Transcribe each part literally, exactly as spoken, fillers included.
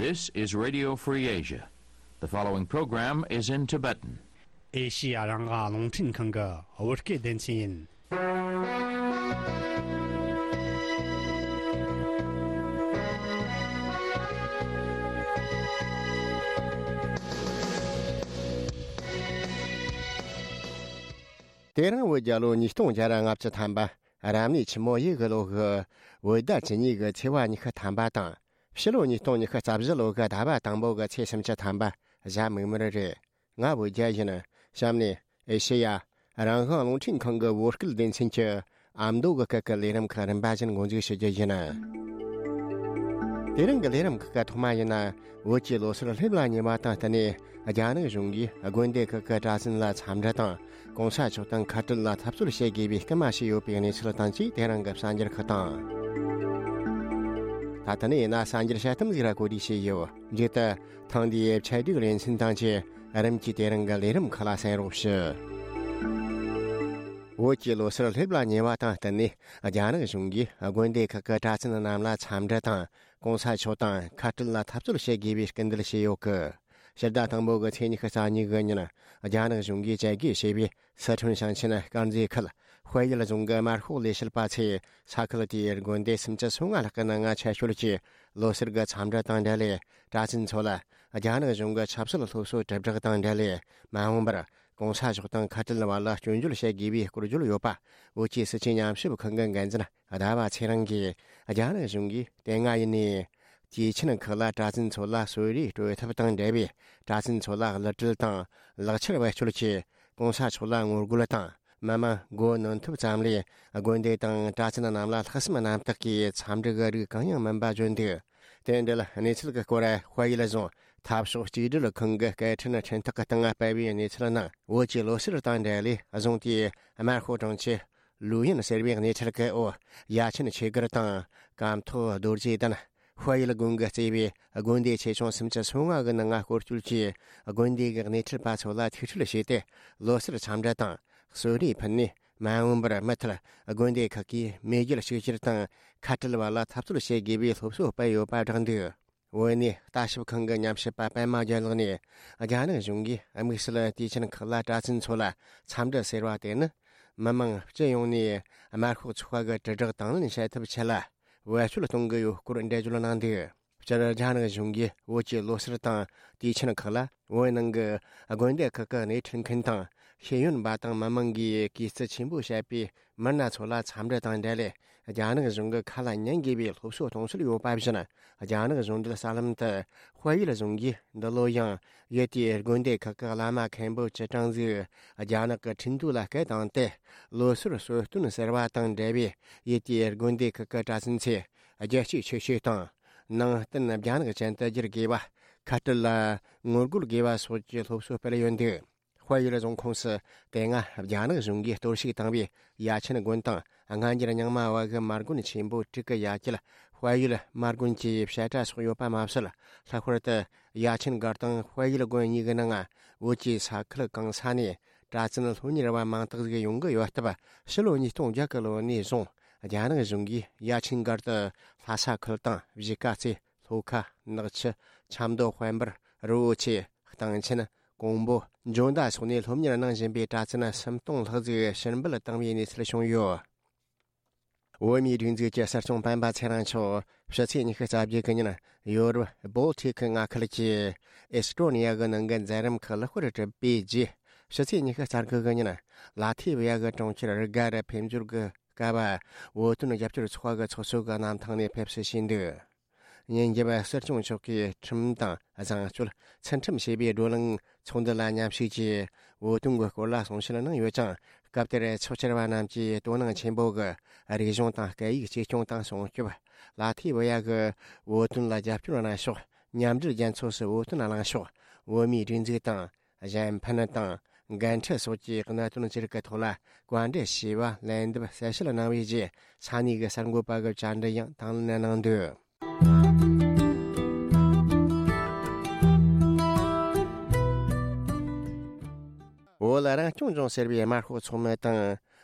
This is Radio Free Asia. The following program is in Tibetan. ཨེ་ཤི་ཡ་རང་དབང་རླུང་འཕྲིན་ཁང་གི་བོད་སྐད་སྡེ་ཚན་ཡིན། དེ་རིང་བོད་རྒྱལ་ལོ་ཉིས་སྟོང་བརྒྱ་ར་ལྔ་བཅུ་ཐམ་པ། རབ་གནས་ཆུ་མོ་ཡོས་གི་ལོ་གི་བོད་ཟླ་བཅུ་གཉིས་གི་ཚེས་པ་ཉི་ཤུ་ཐམ་པ་དང་། ཕྱི་ལོ་ཉིས་སྟོང་ཉི་ཤུ་རྩ་བཞི་ལོ་གི་ཟླ་བ་དང་པོ་གི་ཚེས་སུམ་ཅུ་ཐམ་པ། གཟའ་མིག་དམར་རེད། ང་བོད་རྒྱལ་ཡིན། གཤམ་ནས་ཨེ་ཤེ་ཡ་རང་དབང་རླུང་འཕྲིན་ཁང་གི་བོད་སྐད་སྡེ་ཚན་གྱི་ཨ་མདོ་གི་སྐད་ཀྱི་ལས་རིམ་ཁག་རིམ་པ་བཞིན་འགོ་འཛུགས་ཞུ་རྒྱུ་ཡིན། དེ་རིང་གི་ལས་རིམ་ཁག་གི་ཐོག་མ་ཡིན་ན། བོད་ཀྱི་ལོ་སར་སླེབས་ལ་ཉེ་བ་དང་བསྟུན་ནས། རྒྱ་ནག་གཞུང་གིས་དགོན་སྡེ་ཁག་གི་གྲྭ་བཙུན་ལ་འཚམས་འདྲི་དང་། གོང་ས་མཆོག་དང་ཁ་བྲལ་ལ་འཐབ་རྩོད་བྱེད་དགོས་པའི་སྐུལ་མ་བྱས་ཡོད་པའི་གནས་ཚུལ་དང་བཅས། དེ་རིང་གི་གསར་འགྱུར་ཁག་དང་། ད་ལྟ་ནས་ཡིན་ན་གསར་འགྱུར་དཔྱད་གཏམ་ཟིག་ར་གོ་སྒྲིག་བྱས་ཡོད། མཇུག་ཏུ་ཐེངས་འདིའི་ཆེད་སྒྲིག་ལེ་ཚན་དང་བཅས་རིམ་གྱིས་དེ་རིང་གི་ལས་རིམ་ཁག་ལ་གསན་རོགས་ཞུ། བོད་ཀྱི་ལོ་སར་སླེབས་ལ་ཉེ་བ་དང་བསྟུན་ནས། རྒྱ་ནག་གཞུང་གིས་དགོན་སྡེ་ཁག་གི་གྲྭ་བཙུན་རྣམས་ལ་འཚམས་འདྲི་དང་། གོང་ས་མཆོག་དང་ཁ་བྲལ་ལ་འཐབ་རྩོད་བྱེད་དགོས་པའི་སྐུལ་འདེད་བྱས་ཡོད་གི། ཕྱི་ཟླ་དང་པོ་གི་ཚེས་ཉི་ཤུ་རྩ་གཉིས་གི་ཉིན། རྒྱ་ནག་གཞུང་གིས་བཅད་བགོས་བྱས་པའི་སི་ཁྲོན་ཞིང་ཆེན་དཀར་མཛེས་ཁུལ་དཔལ་ཡུལ་རྫོང་གི་དམར་ཤོག་ལས་བྱེད་པ་ཚོས་ས་ཁུལ་དེའི་དགོན་སྡེ་སུམ་ཅུ་སོ་ལྔ་ལྷག་གི་ནང་ང་ཆེད་ཞུགས་ཀྱིས་ལོ་སར་གྱི་འཚམས་འདྲི་དང་འབྲེལ་ལས། གྲྭ་བཙུན་ཚོ་ལ་རྒྱ་ནག་གཞུང་གི་ཆབ་སྲིད་སློབ་གསོ་དྲིལ་བསྒྲགས་དང་འབྲེལ་ལས། མ་འོངས་པར་གོང་ས་མཆོག་དང་ཁ་བྲལ་བར་ལ་སྐྱོན་བརྗོད་བྱེད་དགོས་པའི་སྐོར་བརྗོད་ཡོད་པ། བོད་ཀྱི་སྲིད་བྱུས་ཉམས་ཞིབ་ཁང་གི་འགན་འཛིན་ཟླ་བ་ཚེ་རིང་གིས། རྒྱ་ནག་གཞུང་གིས་དེ་སྔ་ཡིན་ནའི་དུས་ཆེན་ཁག་ལ་གྲྭ་བཙུན་ཚོ་ལ་གསོལ་རས་སྤྲོད་ཐབས་དང་འབྲེལ་བའི། གྲྭ་བཙུན་ཚོ་ལ་གླུ་སྲོལ་དང་ལག་ཆར་བེད་སྤྱོད་ཀྱིས་གོང་ས་མཆོག་ལ་ངོ་རྒོལ་དང་། མི་མང་མགོ་གནོན་ཐབས་ཙམ་ལས། དགོན་སྡེ་དང་གྲྭ་བཙུན་རྣམས་ལ་ལྷག་བསམ་རྣམ་དག་གིས་འཚམས་འདྲི་གི་རིགས་གང་ཡང་མིན་པ་བརྗོད་འདུག། དེ་འབྲེལ་གནས་ཚུལ་གྱི་སྐོར། དཔལ་ཡུལ་རྫོང་འཐབ་ཕྱོགས་གཅིག་སྒྲིལ་ཁང་གི་སྐད་འཕྲིན་འཕྲིན་ཐག་གི་སྟེང་སྤེལ་བའི་གནས་ཚུལ་ནང་། བོད་ཀྱི་ལོ་སར་དང་འབྲེལ་ལས་རྫོང་དེའི་དམར་ཤོག་དྲུང་ཆེ་ལུའུ་ཡིན་ཟེར་བའི་གནས་ཚུལ་གྱི་འོག། ཡ་ཆེན་ཆོས་སྒར་དང་། སྐམ་ཐོག་རྡོ་རྗེ་གདན། དཔལ་ཡུལ་དགོན་གྱིས་གཙོས་པའི་དགོན་སྡེ་ཆེ་ཆུང་སུམ་ཅུ་སོ་ལྔ་གི་ནང་སྐོར་སྐྱོད་ཀྱིས། དགོན་སྡེ་གི་སྣེ་ཁྲིད་པ་ཚོ་ལ་ཐུག་འཕྲད་བྱས་ཏེ། ལོ་སར་འཚམས་འདྲི་དང་། གསོལ་རས་ཕུལ་ནས། མ་འོངས་པར་མུ་མཐུད་དགོན་སྡེ་ཁག་གིས་མེས་རྒྱལ་གཅིག་གྱུར་དང་ཁ་བྲལ་བ་ལ་འཐབ་རྩོད་བྱེད་དགོས་པའི་སློབ་གསོ་སྤེལ་ཡོད་པ་བསྒྲགས་འདུག། བོད་གནས་ལྟ་ཞིབ་ཁང་གི་ཉམས་ཞིབ་པ་པད་མ་རྒྱལ་ལགས་ནས། རྒྱ་ནག་གཞུང་གིས་དམིགས་བསལ་དུས་ཆེན་ཁག་ལ་གྲྭ་བཙུན་ཚོ་ལ་འཚམས་འདྲི་ཟེར་བ་དེ་ནི། མི་མང་སྤྱི་ཡོངས་ནས་དམར་ཤོག་ཚོགས་པ་གི་དྲིལ་བསྒྲགས་དང་ལེན་བྱེད་ཐབས་ཆེད་ལ་བེད་སྤྱོད་གཏོང་གི་ཡོད་སྐོར་འགྲེལ་བརྗོད་གནང་འདུག། སྤྱིར་རྒྱ་ནག་གཞུང་གིས་བོད་ཀྱི་ལོ་སར་དང་དུས་ཆེན་ཁག་ལ། བོད་ནང་གི་དགོན་སྡེ་ཁག་གི་སྣེ་ཁྲིད་མཁན་དང་ཤེས་ཡོན་པ་དང་མི་མང་གིས་གུས་བརྩི་ཆེན་པོ་བྱེད་པའི་མི་སྣ་ཚོ་ལ་འཚམས་འདྲི་དང་འབྲེལ་ལས། རྒྱ་ནག་གཞུང་གི་ཁ་ལ་ཉན་དགོས་པའི་སློབ་གསོ་གཏོང་སྲོལ་ཡོད་པ་བཞིན། རྒྱ་ནག་གཞུང་འབྲེལ་གསར་ལམ་དུ། དཔལ་ཡུལ་རྫོང་གིས་འདི་ལོ་ཡང་ཡུལ་དེའི་དགོན་སྡེ་ཁག་གི་བླ་མ་མཁན་པོ་བཅུ་གྲངས་ཟིག་རྒྱ་ནག་གི་ཁྲིན་ཏུའུ་ལ་སྐད་བཏང་སྟེ། ལོ་སར་གསོལ་སྟོན་ཟེར་བ་དང་འབྲེལ་བའི་ཡུལ་དེའི་དགོན་སྡེ་ཁག་གི་གྲྭ་བཙུན་ཚོས་རྒྱལ་གཅེས་ཆོས་གཅེས་དང་། ནང་བསྟན་རྒྱ་ནག་ཅན་དུ་བསྒྱུར་དགོས་པ། ཁ་བྲལ་ལ་ངོ་རྒོལ་དགོས་པ་སོགས་ཀྱི་སློབ་གསོ་སྤེལ་ཡོད་འདུག། དཔལ་ཡུལ་རྫོང་ཁོངས་སུ་དེ་སྔ་རྒྱ་ནག་གཞུང་གིས་གཏོར་བཤིག་བཏང་བའི་ཡ་ཆེན་དགོན་དང་སྔ་འགྱུར་རྙིང་མ་བ་གི་མ་དགོན་ཆེན་པོ་དྲུག་གི་ཡ་གྱལ་དཔལ་ཡུལ་མ་དགོན་གྱི་བཤད་གྲྭ་སོགས་ཡོད་པ་མ་ཟད། ལྷག་པར་དུ་ཡ་ཆེན་སྒར་དང་དཔལ་ཡུལ་དགོན་གཉིས་ཀྱི་ནང་བོད་ཀྱི་ས་ཁུལ་གང་ས་ནས་གྲྭ་བཙུན་སློབ་གཉེར་བ་མང་དག་ཟིག་ཡོང་གི་ཡོད་སྟབས། ཕྱི་ལོ་ཉིས་སྟོང་བརྒྱད་གི་ལོ་ནས་བཟུང་རྒྱ་ནག་གཞུང་གིས་ཡ་ཆེན་སྒར་དུ་ལྷ་ས་ཁུལ་དང་གཞིས་ཀ་རྩེ། ལྷོ་ཁ། ནག་ཆུ། ཆབ་མདོ་དཔལ་འབར། རི་བོ་ཆེ། སྟེང་ཆེན། ཀོང་པོ། འཇོ་མདའ་སོགས་ནས་སློབ་གཉེར་གནང་བཞིན་པའི་གྲྭ་བཙུན་སུམ་སྟོང་ལྷག་ཟིག་ཕྱིར་འབུད་བཏང་བའི་གནས་ཚུལ་བྱུང་ཡོད། བོད་མིའི་སྒྲིག་འཛུགས་ཀྱི་སྲིད་སྐྱོང་སྤེན་པ་ཚེ་རིང་མཆོག་ཕྱི་ཚེས་ཉི་ཤུ་རྩ་བརྒྱད་གི་ཉིན་ཡོ་རོབ་བོལ་ཊིག་མངའ་ཁུལ་གྱི་ཨེ་སི་ཀྲོ་ནི་ཡ་གི་ནང་གི་མཛད་རིམ་ཁག་ལེགས་པར་གྲུབ་པའི་རྗེས། ཕྱི་ཚེས་ཉི་ཤུ་རྩ་དགུ་གི་ཉིན་ལ་ཐི་བི་ཡ་གི་གྲོང་ཁྱེར་རི་ག་རུ་ཕེབས་འབྱོར་གྱི་སྐབས། བོད་དོན་རྒྱབ་སྐྱོར་ཚོགས་པ་གི་ཚོགས་གཙོ་གི་གནམ་ཐང་ནས་ཕེབས་བསུ་བྱས་འདུག། ཉིན་རྒྱབ་སྲིད་སྐྱོང་མཆོག་གིས་ཁྲིམས་དང་བཟང་སྤྱོད་ཚུལ་ཁྲིམས་ཞེས་པའི་བགྲོ་གླེང་ཚོགས་འདུ་ལ་མཉམ་ཞུགས་ཀྱིས། བོད་དོན་གྱི་སྐོར་ལ་གསུང་བཤད་གནང་ཡོད་ཅིང་། སྐབས་དེར་ཚོགས་བཅར་བ་རྣམས་ཀྱིས་དོ་སྣང་ཆེན་པོ་གིས་རིག་གཞུང་དང་སྐད་ཡིག་གཅེས་སྐྱོང་དང་སྲུང་སྐྱོབ། ལ་ཐི་བི་ཡ་གི་བོད་དོན་ལ་རྒྱབ་སྐྱོར་གནང་ཕྱོགས། མཉམ་འབྲེལ་རྒྱལ་ཚོགས་སུ་བོད་དོན་གླེང་ཕྱོགས། བོད་མིའི་སྒྲིག་འཛུགས་དང་། གཞན་ཕན་དང་། འགན་འཁྲི་སོགས་ཀྱི་གནད་དོན་བཅས་ཀྱི་ཐོག་ལ་བཀའ་འདྲི་ཞུས་པ། ལན་འདེབས་གསལ་བཤད་གནང་བའི་རྗེས། ས་གནས་ཀྱི་གསར་འགོད་པ་གི་བཅར་འདྲི་ཡང་དང་ལེན་གནང་འདུག། བོད་རང་སྐྱོང་ལྗོངས་ཟེར་བའི་དམར་ཤོག་ཚོགས་མི་དང་།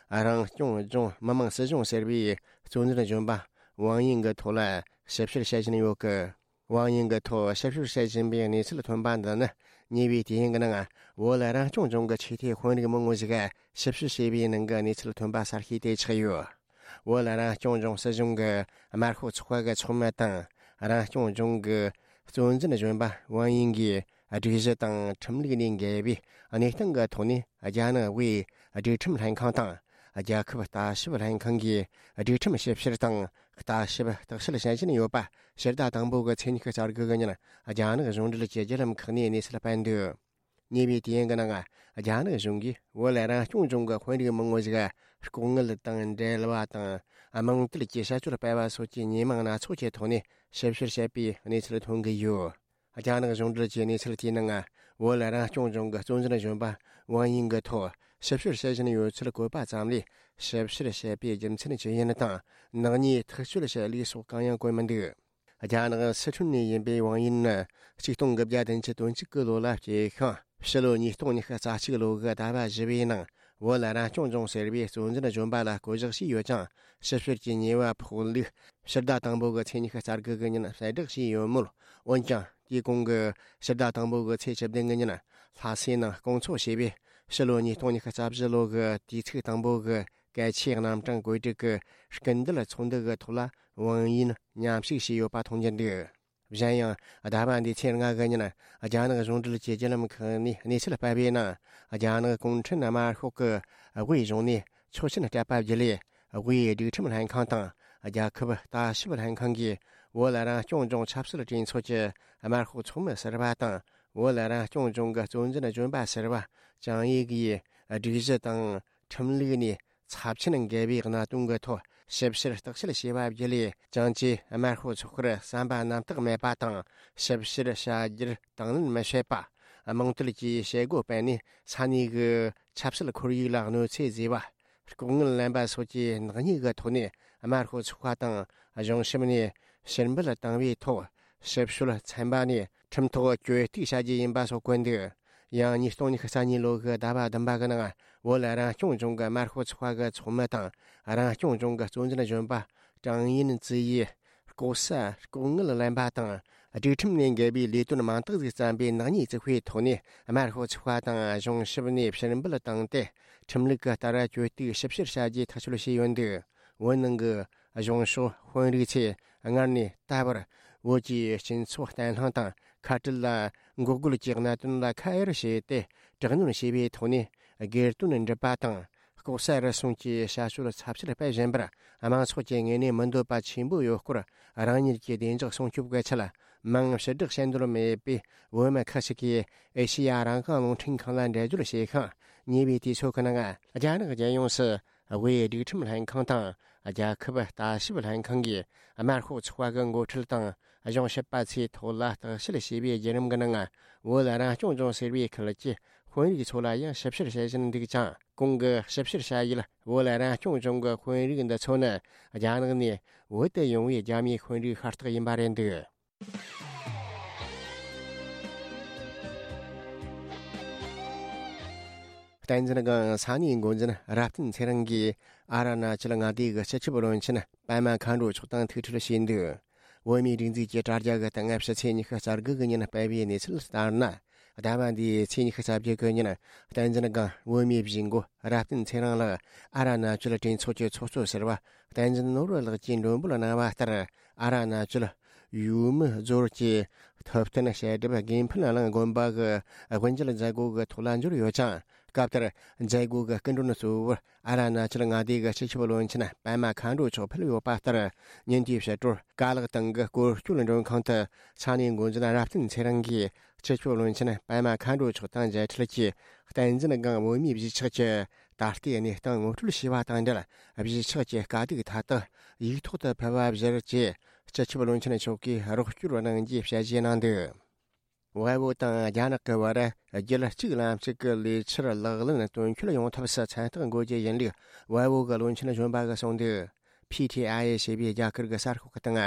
རང་སྐྱོང་ལྗོངས་མི་དམངས་སྲིད་གཞུང་ཟེར་བའི་གཙོ་འཛིན་གཞོན་པ་ཝང་དབྱིང་གི་ཐོག་ལ་ཞིབ་བཤེར་བྱེད་བཞིན་ཡོད་ཀི། ཝང་ཡིན་གྱི་ཐོག་ཞིབ་བཤེར་བྱེད་བཞིན་པའི་གནས་ཚུལ་ཐོན་པ་འདི་ནི། ཉེ་བའི་དུས་ཡུན་གྱི་ནང་བོད་རང་སྐྱོང་ལྗོངས་ཀྱི་ཆོས་དད་དཔོན་རིགས་མང་བོ་ཞིག་ཞིབ་བཤེར་བྱས་པའི་ནང་གི་གནས་ཚུལ་ཐོན་པ་གསར་ཤོས་དེ་ཆགས་ཡོད། བོད་རང་སྐྱོང་ལྗོངས་སྲིད་གཞུང་གི་དམར་ཤོག་ཚོགས་པ་གི་ཚོགས་མི་དང་། རང་སྐྱོང་ལྗོངས་ཀྱི་གཙོ་འཛིན་གཞོན་པ་ཝང་ཡིན་གྱིས་སྒྲིག་གཞི་དང་ཁྲིམས་ལུགས་ནས་འགལ་བའི་གནས་སྟངས་ཀྱི་ཐོག་ནས། རྒྱ་ནག་དབུས་སྒྲིག་ཁྲིམས་ལྷན་ཁང་དང་། རྒྱལ་ཁབ་ལྟ་ཞིབ་ལྷན་ཁང་གིས་སྒྲིག་ཁྲིམས་ཞིབ་བཤེར་དང་ལྟ་ཞིབ་བརྟག་དཔྱད་བྱེད་བཞིན་ཡོད་པ། ཕྱི་ཟླ་དང་པོ་གི་ཚེས་ཉི་ཤུ་རྩ་དགུ་གི་ཉིན། རྒྱ་ནག་གཞུང་འབྲེལ་གྱི་བརྒྱུད་ལམ་ཁག་ནས་གནས་ཚུལ་སྤེལ་འདུག་ཉེ་བའི་དུས་ཡུན་གྱི་ནང་། རྒྱ་ནག་གཞུང་གིས་བོད་རང་སྐྱོང་ལྗོངས་ཀྱི་དཔོན་རིགས་མང་བོ་ཞིག་ལྐོག་དངུལ་དང་འབྲེལ་བ་དང་། དམངས་དོན་གྱི་བྱ་སྤྱོད་སྤེལ་བ་སོགས་ཀྱི་ཉེས་མིང་སྣ་ཚོགས་ཀྱི་ཐོག་ནས་ཞིབ་བཤེར་བྱས་པའི་གནས་ཚུལ་ཐོན་གྱི་ཡོད། རྒྱ་ནག་གཞུང་འབྲེལ་གྱི་གནས་ཚུལ་དེའི་ནང་། བོད་རང་སྐྱོང་ལྗོངས་ཀྱི་གཙོ་འཛིན་གཞོན་པ་ཝང་ཡིན་གྱི་ཐོག་ཞིབ་བཤེར་བྱེད་བཞིན་ཡོད་ཚུལ་བཀོད་པ་ཙམ་ལས། ཞིབ་བཤེར་བྱས་པའི་རྒྱུ་མཚན་ཇི་ཡིན་དང་། ནག་ཉེས་ཐག་གཅོད་བྱས་ལུགས་སོགས་གང་ཡང་བཀོད་མི་འདུག་རྒྱ་ནག་སི་ཁྲོན་ནས་ཡིན་པའི་ཝང་ཡིན་ནི། ཆིག་སྟོང་དགུ་བརྒྱ་བདུན་ཅུ་དོན་གཅིག་གི་ལོ་ལ་སྐྱེས་ཤིང་། ཕྱི་ལོ་ཉིས་སྟོང་ཉི་ཤུ་རྩ་གཅིག་ལོ་གི་ཟླ་བ་བཞི་པའི་ནང་། བོད་རང་སྐྱོང་ལྗོངས་ཟེར་བའི་གཙོ་འཛིན་གཞོན་པ་ལ་བསྐོ་གཞག་བྱས་ཡོད་ཀྱང་། ཞིབ་བཤེར་གྱི་ཉེས་པ་ཕོག་ལུགས་ཕྱི་ཟླ་དང་པོ་གི་ཚེས་ཉི་ཤུ་རྩ་དགུ་གི་ཉིན་གསལ་བསྒྲགས་བྱས་ཡོད་མོད། འོན་ཀྱང་། དེའི་གོང་གི་ཕྱི་ཟླ་དང་པོ་གི་ཚེས་བཅུ་བདུན་གི་ཉིན། ལྷ་སའི་ནང་སྐོང་ཚོགས་བྱས་པའི་ཕྱི་ལོ་ཉིས་སྟོང་ཉི་ཤུ་རྩ་བཞི་ལོ་གི་དུས་ཚིགས་དང་པོ་གི་གལ་ཆེའི་རྣམ་གྲངས་བཀོད་སྒྲིག་གི་སྐུལ་འདེད་ཚོགས་འདུ་གི་ཐོག་ལ། ཝང་ཡིན་མཉམ་ཞུགས་བྱས་ཡོད་པ་མཐོང་རྒྱུ་འདུག་གཞན་ཡང་། ཟླ་བ་འདིའི་ཚེས་ལྔ་གི་ཉིན། རྒྱ་ནག་གཞུང་འབྲེལ་གྱི་བརྒྱུད་ལམ་ཁག་ནས་གནས་ཚུལ་སྤེལ་བའི་ནང་། རྒྱ་ནག་གུང་ཁྲན་དམར་ཤོག་གི་དབུས་གཞུང་ནས་ཆོག་མཆན་སྤྲད་པ་བརྒྱུད་ལས། དབུས་སྒྲིག་ཁྲིམས་ལྷན་ཁང་དང་། རྒྱལ་ཁབ་ལྟ་ཞིབ་ལྷན་ཁང་གིས། བོད་རང་སྐྱོང་ལྗོངས་ཆབ་སྲིད་གྲོས་ཚོགས་ཀྱི་དམར་ཤོག་ཚོགས་མི་ཟུར་པ་དང་། བོད་རང་སྐྱོང་ལྗོངས་ཀྱི་གཙོ་འཛིན་གཞོན་པ་ཟུར་པ་ཅང་ཡིག་ཡིས། སྒྲིག་གཞི་དང་ཁྲིམས་ལུགས་ནས་ཚབས་ཆེན་འགལ་བའི་གནད་དོན་གྱི་ཐོག་ཞིབ་བཤེར་བརྟག་དཔྱད་བྱས་པ་བརྒྱུད་ལས། ཅང་ཅེས་དམར་ཤོག་ཚོགས་པར་བསམ་པ་རྣམ་དག་མེད་པ་དང་། ཞིབ་བཤེར་བྱ་རྒྱུར་དང་ལེན་མི་བྱེད་པ། དམངས་དོན་གྱི་བྱེད་སྒོ་སྤེལ་ནས་ས་གནས་ཀྱི་ཆབ་སྲིད་ཁོར་ཡུག་ལ་གནོད་འཚེ་བཟོས་པ། ལྐོག་དངུལ་ལེན་པ་སོགས་ཀྱི་ནག་ཉེས་ཀྱི་ཐོག་ནས། དམར་ཤོག་ཚོགས་པ་དང་གཞུང་ཞབས་ནས་ཕྱིར་འབུད་བཏང་བའི་ཐོག་ཞིབ་དཔྱོད་ཚན་པ་ནས་ཁྲིམས་ཐོག་གྱོད་གཏུག་བྱ་རྒྱུ་ཡིན་པ་སོགས་བཀོད་འདུག་ཡང་། ཉིས་སྟོང་ཉི་ཤུ་རྩ་གཉིས་ལོ་གི་ཟླ་བ་བདུན་པ་གི་ནང་། བོད་རང་སྐྱོང་ལྗོངས་ཀྱི་དམར་ཤོག་ཚོགས་པ་གི་ཚོགས་མི་དང་། རང་སྐྱོང་ལྗོངས་ཀྱི་གཙོ་འཛིན་གཞོན་པ་ཀྲང་ཡིན་ཙི་ཡིས། ལྐོག་ཟ་ལྐོག་དངུལ་ལེན་པ་དང་། སྒྲིག་ཁྲིམས་ནས་འགལ་བའི་ལས་དོན་མང་དག་ཅིག་བརྩམས་པའི་ནག་ཉེས་བཙུགས་པའི་ཐོག་ནས། དམར་ཤོག་ཚོགས་པ་དང་གཞུང་ཞབས་ནས་ཕྱིར་འབུད་བཏང་སྟེ། ཁྲིམས་ལུགས་ཀྱི་ལྟར་གྱོད་གཏུག་ཞིབ་བཤེར་བྱ་རྒྱུའི་ཐག་གཅོད་བྱས་ཡོད་འདུག་བོད་ནང་གི་གཞུང་ཕྱོགས་དཔོན་རིགས་ཚོས་སྔར་ནས་ད་བར། བོད་ཀྱི་སྤྱི་ཚོགས་བརྟན་ལྷིང་དང་ཁ་བྲལ་ལ་འགོག་རྒོལ་གྱི་གནད་དོན་ལ་ཁ་གཡར་བྱས་ཏེ། དྲག་གནོན་བྱས་པའི་ཐོག་ནས་སྒེར་དོན་སྒྲུབ་པ་དང་། ལྐོག་ཟ་རུལ་སུངས་ཀྱི་བྱ་སྤྱོད་ཚབས་ཆེར་སྤེལ་བཞིན་པར། དམངས་ཚོགས་ཀྱི་ངོས་ནས་མི་འདོད་པ་ཆེན་པོ་ཡོད་སྐོར། རང་ཉིད་ཀྱི་བདེ་འཇགས་སྲུང་སྐྱོབ་ཀྱི་ཆེད། མིང་ཕྱིར་བསྒྲགས་བྱེད་འདོད་མེད་པའི་བོད་མི་ཁག་ཅིག་གིས་ཨེ་ཤེ་ཡ་རང་དབང་རླུང་འཕྲིན་ཁང་ལ་འགྲེལ་བརྗོད་བྱས་ཤིང་། ཉེ་བའི་དུས་ཚོད་ཀྱི་ནང་། རྒྱ་ནག་རྒྱལ་ཡོངས་སུ་དབུས་སྒྲིག་ཁྲིམས་ལྷན་ཁང་དང་། རྒྱལ་ཁབ་ལྟ་ཞིབ་ལྷན་ཁང་གིས་དམར་ཤོག་ཚོགས་པ་གི་འགོ་ཁྲིད་དང་གཞུང་ཞབས་པ་ཚོའི་ཐོག་ལ་བརྟག་དཔྱད་བྱས་པའི་བརྒྱུད་རིམ་གྱི་ནང་། བོད་རང་སྐྱོང་ལྗོངས་ཟེར་བའི་ཁུལ་གྱི་དཔོན་རིགས་ཚོ་ལ་ཡང་ཞིབ་བཤེར་བྱེད་བཞིན་འདུག་ཅིང་། གོང་གི་ཞིབ་བཤེར་བྱ་ཡུལ་བོད་རང་སྐྱོང་ལྗོངས་ཀྱི་དཔོན་རིགས་འདི་ཚོ་ནི། རྒྱ་ནག་ནས་བོད་དུ་ཡོང་བའི་རྒྱ་མིའི་དཔོན་རིགས་ཤ་སྟག་ཡིན་པ་རེད་འདུག་བསྟན་འཛིན་སྒང་ས་གནས་འགོ་འཛིན་རབ་བརྟན་ཚེ་རིང་གིས། ཨ་རུ་ན་ཅལ་མངའ་སྡེ་གི་སྤྱི་ཁྱབ་བློན་ཆེན་པད་མ་མཁའ་འགྲོ་མཆོག་དང་ཐུག་འཕྲད་བྱས་འདུག་བོད་མིའི་སྒྲིག་འཛུགས་ཀྱི་དྲ་རྒྱ་གི་སྟེང་ཕྱི་ཚེས་ཉི་ཤུ་རྩ་དགུ་གི་ཉིན་སྤེལ་བའི་གནས་ཚུལ་ལྟར་ན། ཟླ་བ་འདིའི་ཚེས་ཉི་ཤུ་རྩ་བརྒྱད་གི་ཉིན། བསྟན་འཛིན་སྒང་བོད་མིའི་གཞིས་འགོ་རབ་བརྟན་ཚེ་རིང་ལགས་ཨ་རུ་ན་ཅལ་གྲོས་ཚོགས་ཀྱི་ཚོགས་གཙོ་ཟུར་པ་བསྟན་འཛིན་ནོར་བུ་ལགས་ཀྱིས་མགྲོན་འབོད་གནང་བ་ལྟར། ཨ་རུ་ན་ཅལ་ཡུས་མི་རྫོར་གྱི་ཐུབ་བསྟན་བཤད་སྒྲུབ་དགེ་འཕེལ་གླིང་དགོན་པ་གི་དབུ་འབྱེད་མཛད་སྒོ་གི་ཐོག་ལ་འབྱོར་ཡོད་ཅིང་། སྐབས་དེར་མཛད་སྒོ་གི་སྐུ་མགྲོན་གཙོ་བོར་ཨ་རུ་ན་ཅལ་མངའ་སྡེ་གི་སྤྱི་ཁྱབ་བློན་ཆེན་པད་མ་མཁའ་འགྲོ་མཆོག་ཕེབས་ཡོད་པ་ལྟར། ཉིན་དེའི་ཕྱི་དྲོར་ཀ་ལག་སྟེང་གི་སྐོར་སྐྱོད་མགྲོན་ཁང་དུ་ས་གནས་འགོ་འཛིན་རབ་བརྟན་ཚེ་རིང་གིས་སྤྱི་ཁྱབ་བློན་ཆེན་པད་མ་མཁའ་འགྲོ་མཆོག་དང་མཇལ་འཕྲད་ཀྱིས། བསྟན་འཛིན་སྒང་བོད་མིའི་གཞིས་ཆགས་ཀྱི་ད་ལྟའི་གནས་སྟངས་ངོ་སྤྲོད་བྱས་པ་དང་འབྲེལ། གཞིས་ཆགས་ཀྱི་དཀའ་སྡུག་མཐའ་དག་ཡིག་ཐོག་ཏུ་ཕུལ་བ་གཞིར་བཅས། སྤྱི་ཁྱབ་བློན་ཆེན་མཆོག་གིས་རོགས་སྐྱོར་གནང་རྒྱུའི་བཤད་གཞི་གནང་འདུག་བལ་པོ་དང་རྒྱ་ནག་གི་བར་རྒྱུད་གཅིག་ལམ་གཅིག་གི་ལས་འཆར་ལག་ལེན་དོན་འཁྱོལ་ཡོང་ཐབས་སུ་མཚན་རྟགས་འགོད་རྒྱུ་ཡིན་ལུགས་བལ་པོ་གི་བློན་ཆེན་གཞོན་པ་གིས་གསུངས་འདུག་ཕི་ཐི་ཨའི་ཨེ་ཞེས་པའི་རྒྱ་གར་གྱི་གསར་ཤོག་གི་སྟེང་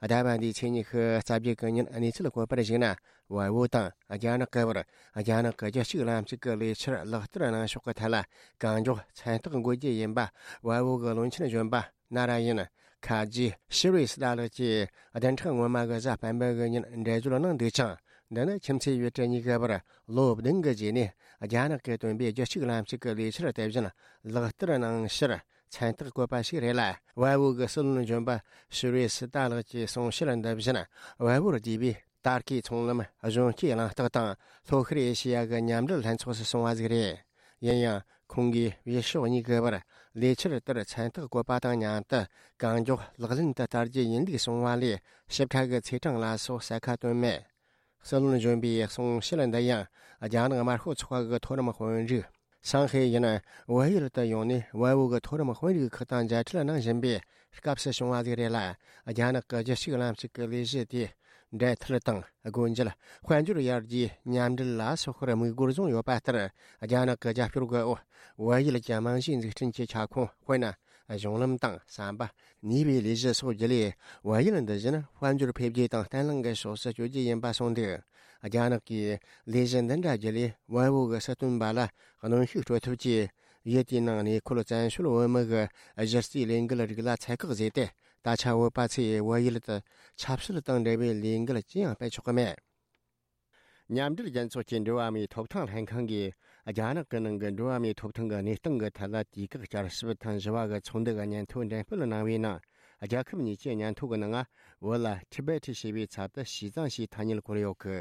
ཟླ་བ་འདིའི་ཚེས་ཉི་ཤུ་རྩ་བརྒྱད་གི་ཉིན་གནས་ཚུལ་བཀོད་པར་གཞིགས་ན། བལ་པོ་དང་རྒྱ་ནག་གི་བར་རྒྱ་ནག་གི་རྒྱུད་གཅིག་ལམ་གཅིག་གི་ལས་འཆར་ལག་བསྟར་གནང་ཕྱོགས་ཀྱི་ཐད་ལ་གང་མགྱོགས་མཚན་རྟགས་འགོད་རྒྱུ་ཡིན་པ་བལ་པོ་གི་བློན་ཆེན་གཞོན་པ་ན་ར་ཡིན་ ཁ་རྗེ་ཤི་རི་སི་ཏཱ་ལགས་ཀྱིས་བདུན་ཕྲག་སྔོན་མ་གི་གཟའ་སྤེན་པ་གི་ཉིན་འགྲེལ་བརྗོད་གནང་འདུག་ཅིང་། འདི་ནི་ཁྱིམ་མཚེས་ཡུལ་གྲུ་གཉིས་ཀྱི་བར་ལོ་བདུན་གྱི་རྗེས་ནས་རྒྱ་ནག་གིས་བཏོན་པའི་རྒྱུད་གཅིག་ལམ་གཅིག་གི་ལས་འཆར་དེ་བཞིན་ལག་བསྟར་གནང་ཕྱིར་མཚན་རྟགས་བཀོད་པ་ཞིག་རེད་ལ། ཝལ་བོ་གི་སྲིད་བློན་གཞོན་པ་ཤི་རི་སི་ཏཱ་ལགས་ཀྱིས་གསུང་བཤད་འདི་བཞིན་ཝལ་བོར་བསྡུས་པའི་ཏར་ཀིའི་ཚོང་ལམ་གཞོན་སྐྱེས་གླེང་སྟེགས་དང་ལྷོ་ཤར་ཨེ་ཤི་ཡ་གི་མཉམ་འབྲེལ་ལྷན་ཚོགས་སུ་སོང་བ་ཟིག་རེད། ཡིན་ཡང་ཁོང་གིས་བྱེད་ཕྱོགས་གཉིས་ཀྱི་བར་ལས་འཆར་ལྟར་མཚན་རྟགས་བཀོད་པ་དང་མཉམ་དུ་གང་མགྱོགས་ལག་ལེན་དུ་བསྟར་རྒྱུ་ཡིན་ལུགས་གསུངས་པ་ལས་ཞིབ་ཕྲ་གི་ཚེས་གྲངས་ལ་སོགས་གསལ་ཁ་བཏོན་མེད། སྲིད་བློན་གཞོན་པའི་གསུང་བཤད་འདི་ཡང་རྒྱ་ནག་དམར་ཤོག་ཚོགས་པ་གི་མཐོ་རིམ་དཔོན་རིགས་ཧྲང་ཧའེ་ཡིན་ཝེ་ཡུལ་དུ་ཡོང་ནས་ཝེ་བོ་གི་མཐོ་རིམ་དཔོན་རིགས་ཁག་དང་མཇལ་འཕྲད་གནང་བཞིན་པའི་སྐབས་སུ་བྱུང་བ་ཟིག་རེད་ལ། རྒྱ་ནག་གི་རྒྱུད་གཅིག་ལམ་གཅིག་གི་ལས་གཞི་དེའི་འབྲེལ་མཐུད་དང་སྒོ་འབྱེད། དཔལ་འབྱོར་ཡར་རྒྱས། མཉམ་འབྲེལ་ལ་སོགས་པར་དམིགས་སྒོར་བཟུང་ཡོད་པ་ལྟར། རྒྱ་ནག་གི་རྒྱབ་སྐྱོར་གྱི་འོག་ཝེ་ཡུལ་གྱི་རྨང་གཞིའི་འཛུགས་སྐྲུན་གྱི་ཁྱབ་ཁོངས། དཔེར་ན། གཞུང་ལམ་དང་ཟམ་པ། ནུས་པའི་ལས་གཞི་སོགས་བརྒྱུད་ལས། ཝེ་ཡུལ་འདི་བཞིན་དཔལ་འབྱོར་འཕེལ་རྒྱས་དང་བརྟན་ལྷིང་གི་ཕྱོགས་སུ་བསྐྱོད་རྒྱུ་ཡིན་པ་གསུངས་འདུག། རྒྱ་ནག་གིས་ལས་གཞི་འདི་འདྲ་བརྒྱུད་ལས་ཝེ་བོ་གི་སྲིད་དོན་པ་ལ་གནོན་ཤུགས་སྤྲོད་ཐབས་ཀྱིས། ཡུལ་དེའི་ནང་གནས་འཁོད་བཙན་བྱོལ་བོད་མི་གི་གཞི་རྩའི་ལས་འགུལ་རིགས་ལ་ཚད་བཀག་བཟོས་ཏེ། ད་ཆ་བོད་པ་ཚོས་བལ་ཡུལ་དུ་ཆབ་སྲིད་དང་འབྲེལ་བའི་ལས་འགུལ་ཅི་ཡང་སྤེལ་ཆོག་གི་མེད། མཉམ་འབྲེལ་རྒྱལ་ཚོགས་ཀྱི་འགྲོ་བ་མིའི་ཐོབ་ཐང་ལྷན་ཁང་གིས་རྒྱ་ནག་གི་ནང་གི་འགྲོ་བ་མིའི་ཐོབ་ཐང་གི་གནས་སྟངས་ཀྱི་ཐད་ལ་དུས་བཀག་བསྐྱར་ཞིབ་ཐེངས་བཞི་བ་གི་ཚོགས་འདུ་གི་སྙན་ཐོ་འགྲེམས་སྤེལ་གནང་བའི་ནང་། རྒྱལ་ཁབ་གཉིས་ཀྱི་སྙན་ཐོ་གི་ནང་བོད་ལ་ཊི་བེ་ཊི་ཞེས་པའི་ཚབ་ཏུ་ཞི་ཙང་ཞེས་ཐ་སྙད་བཀོད་ཡོད་གི།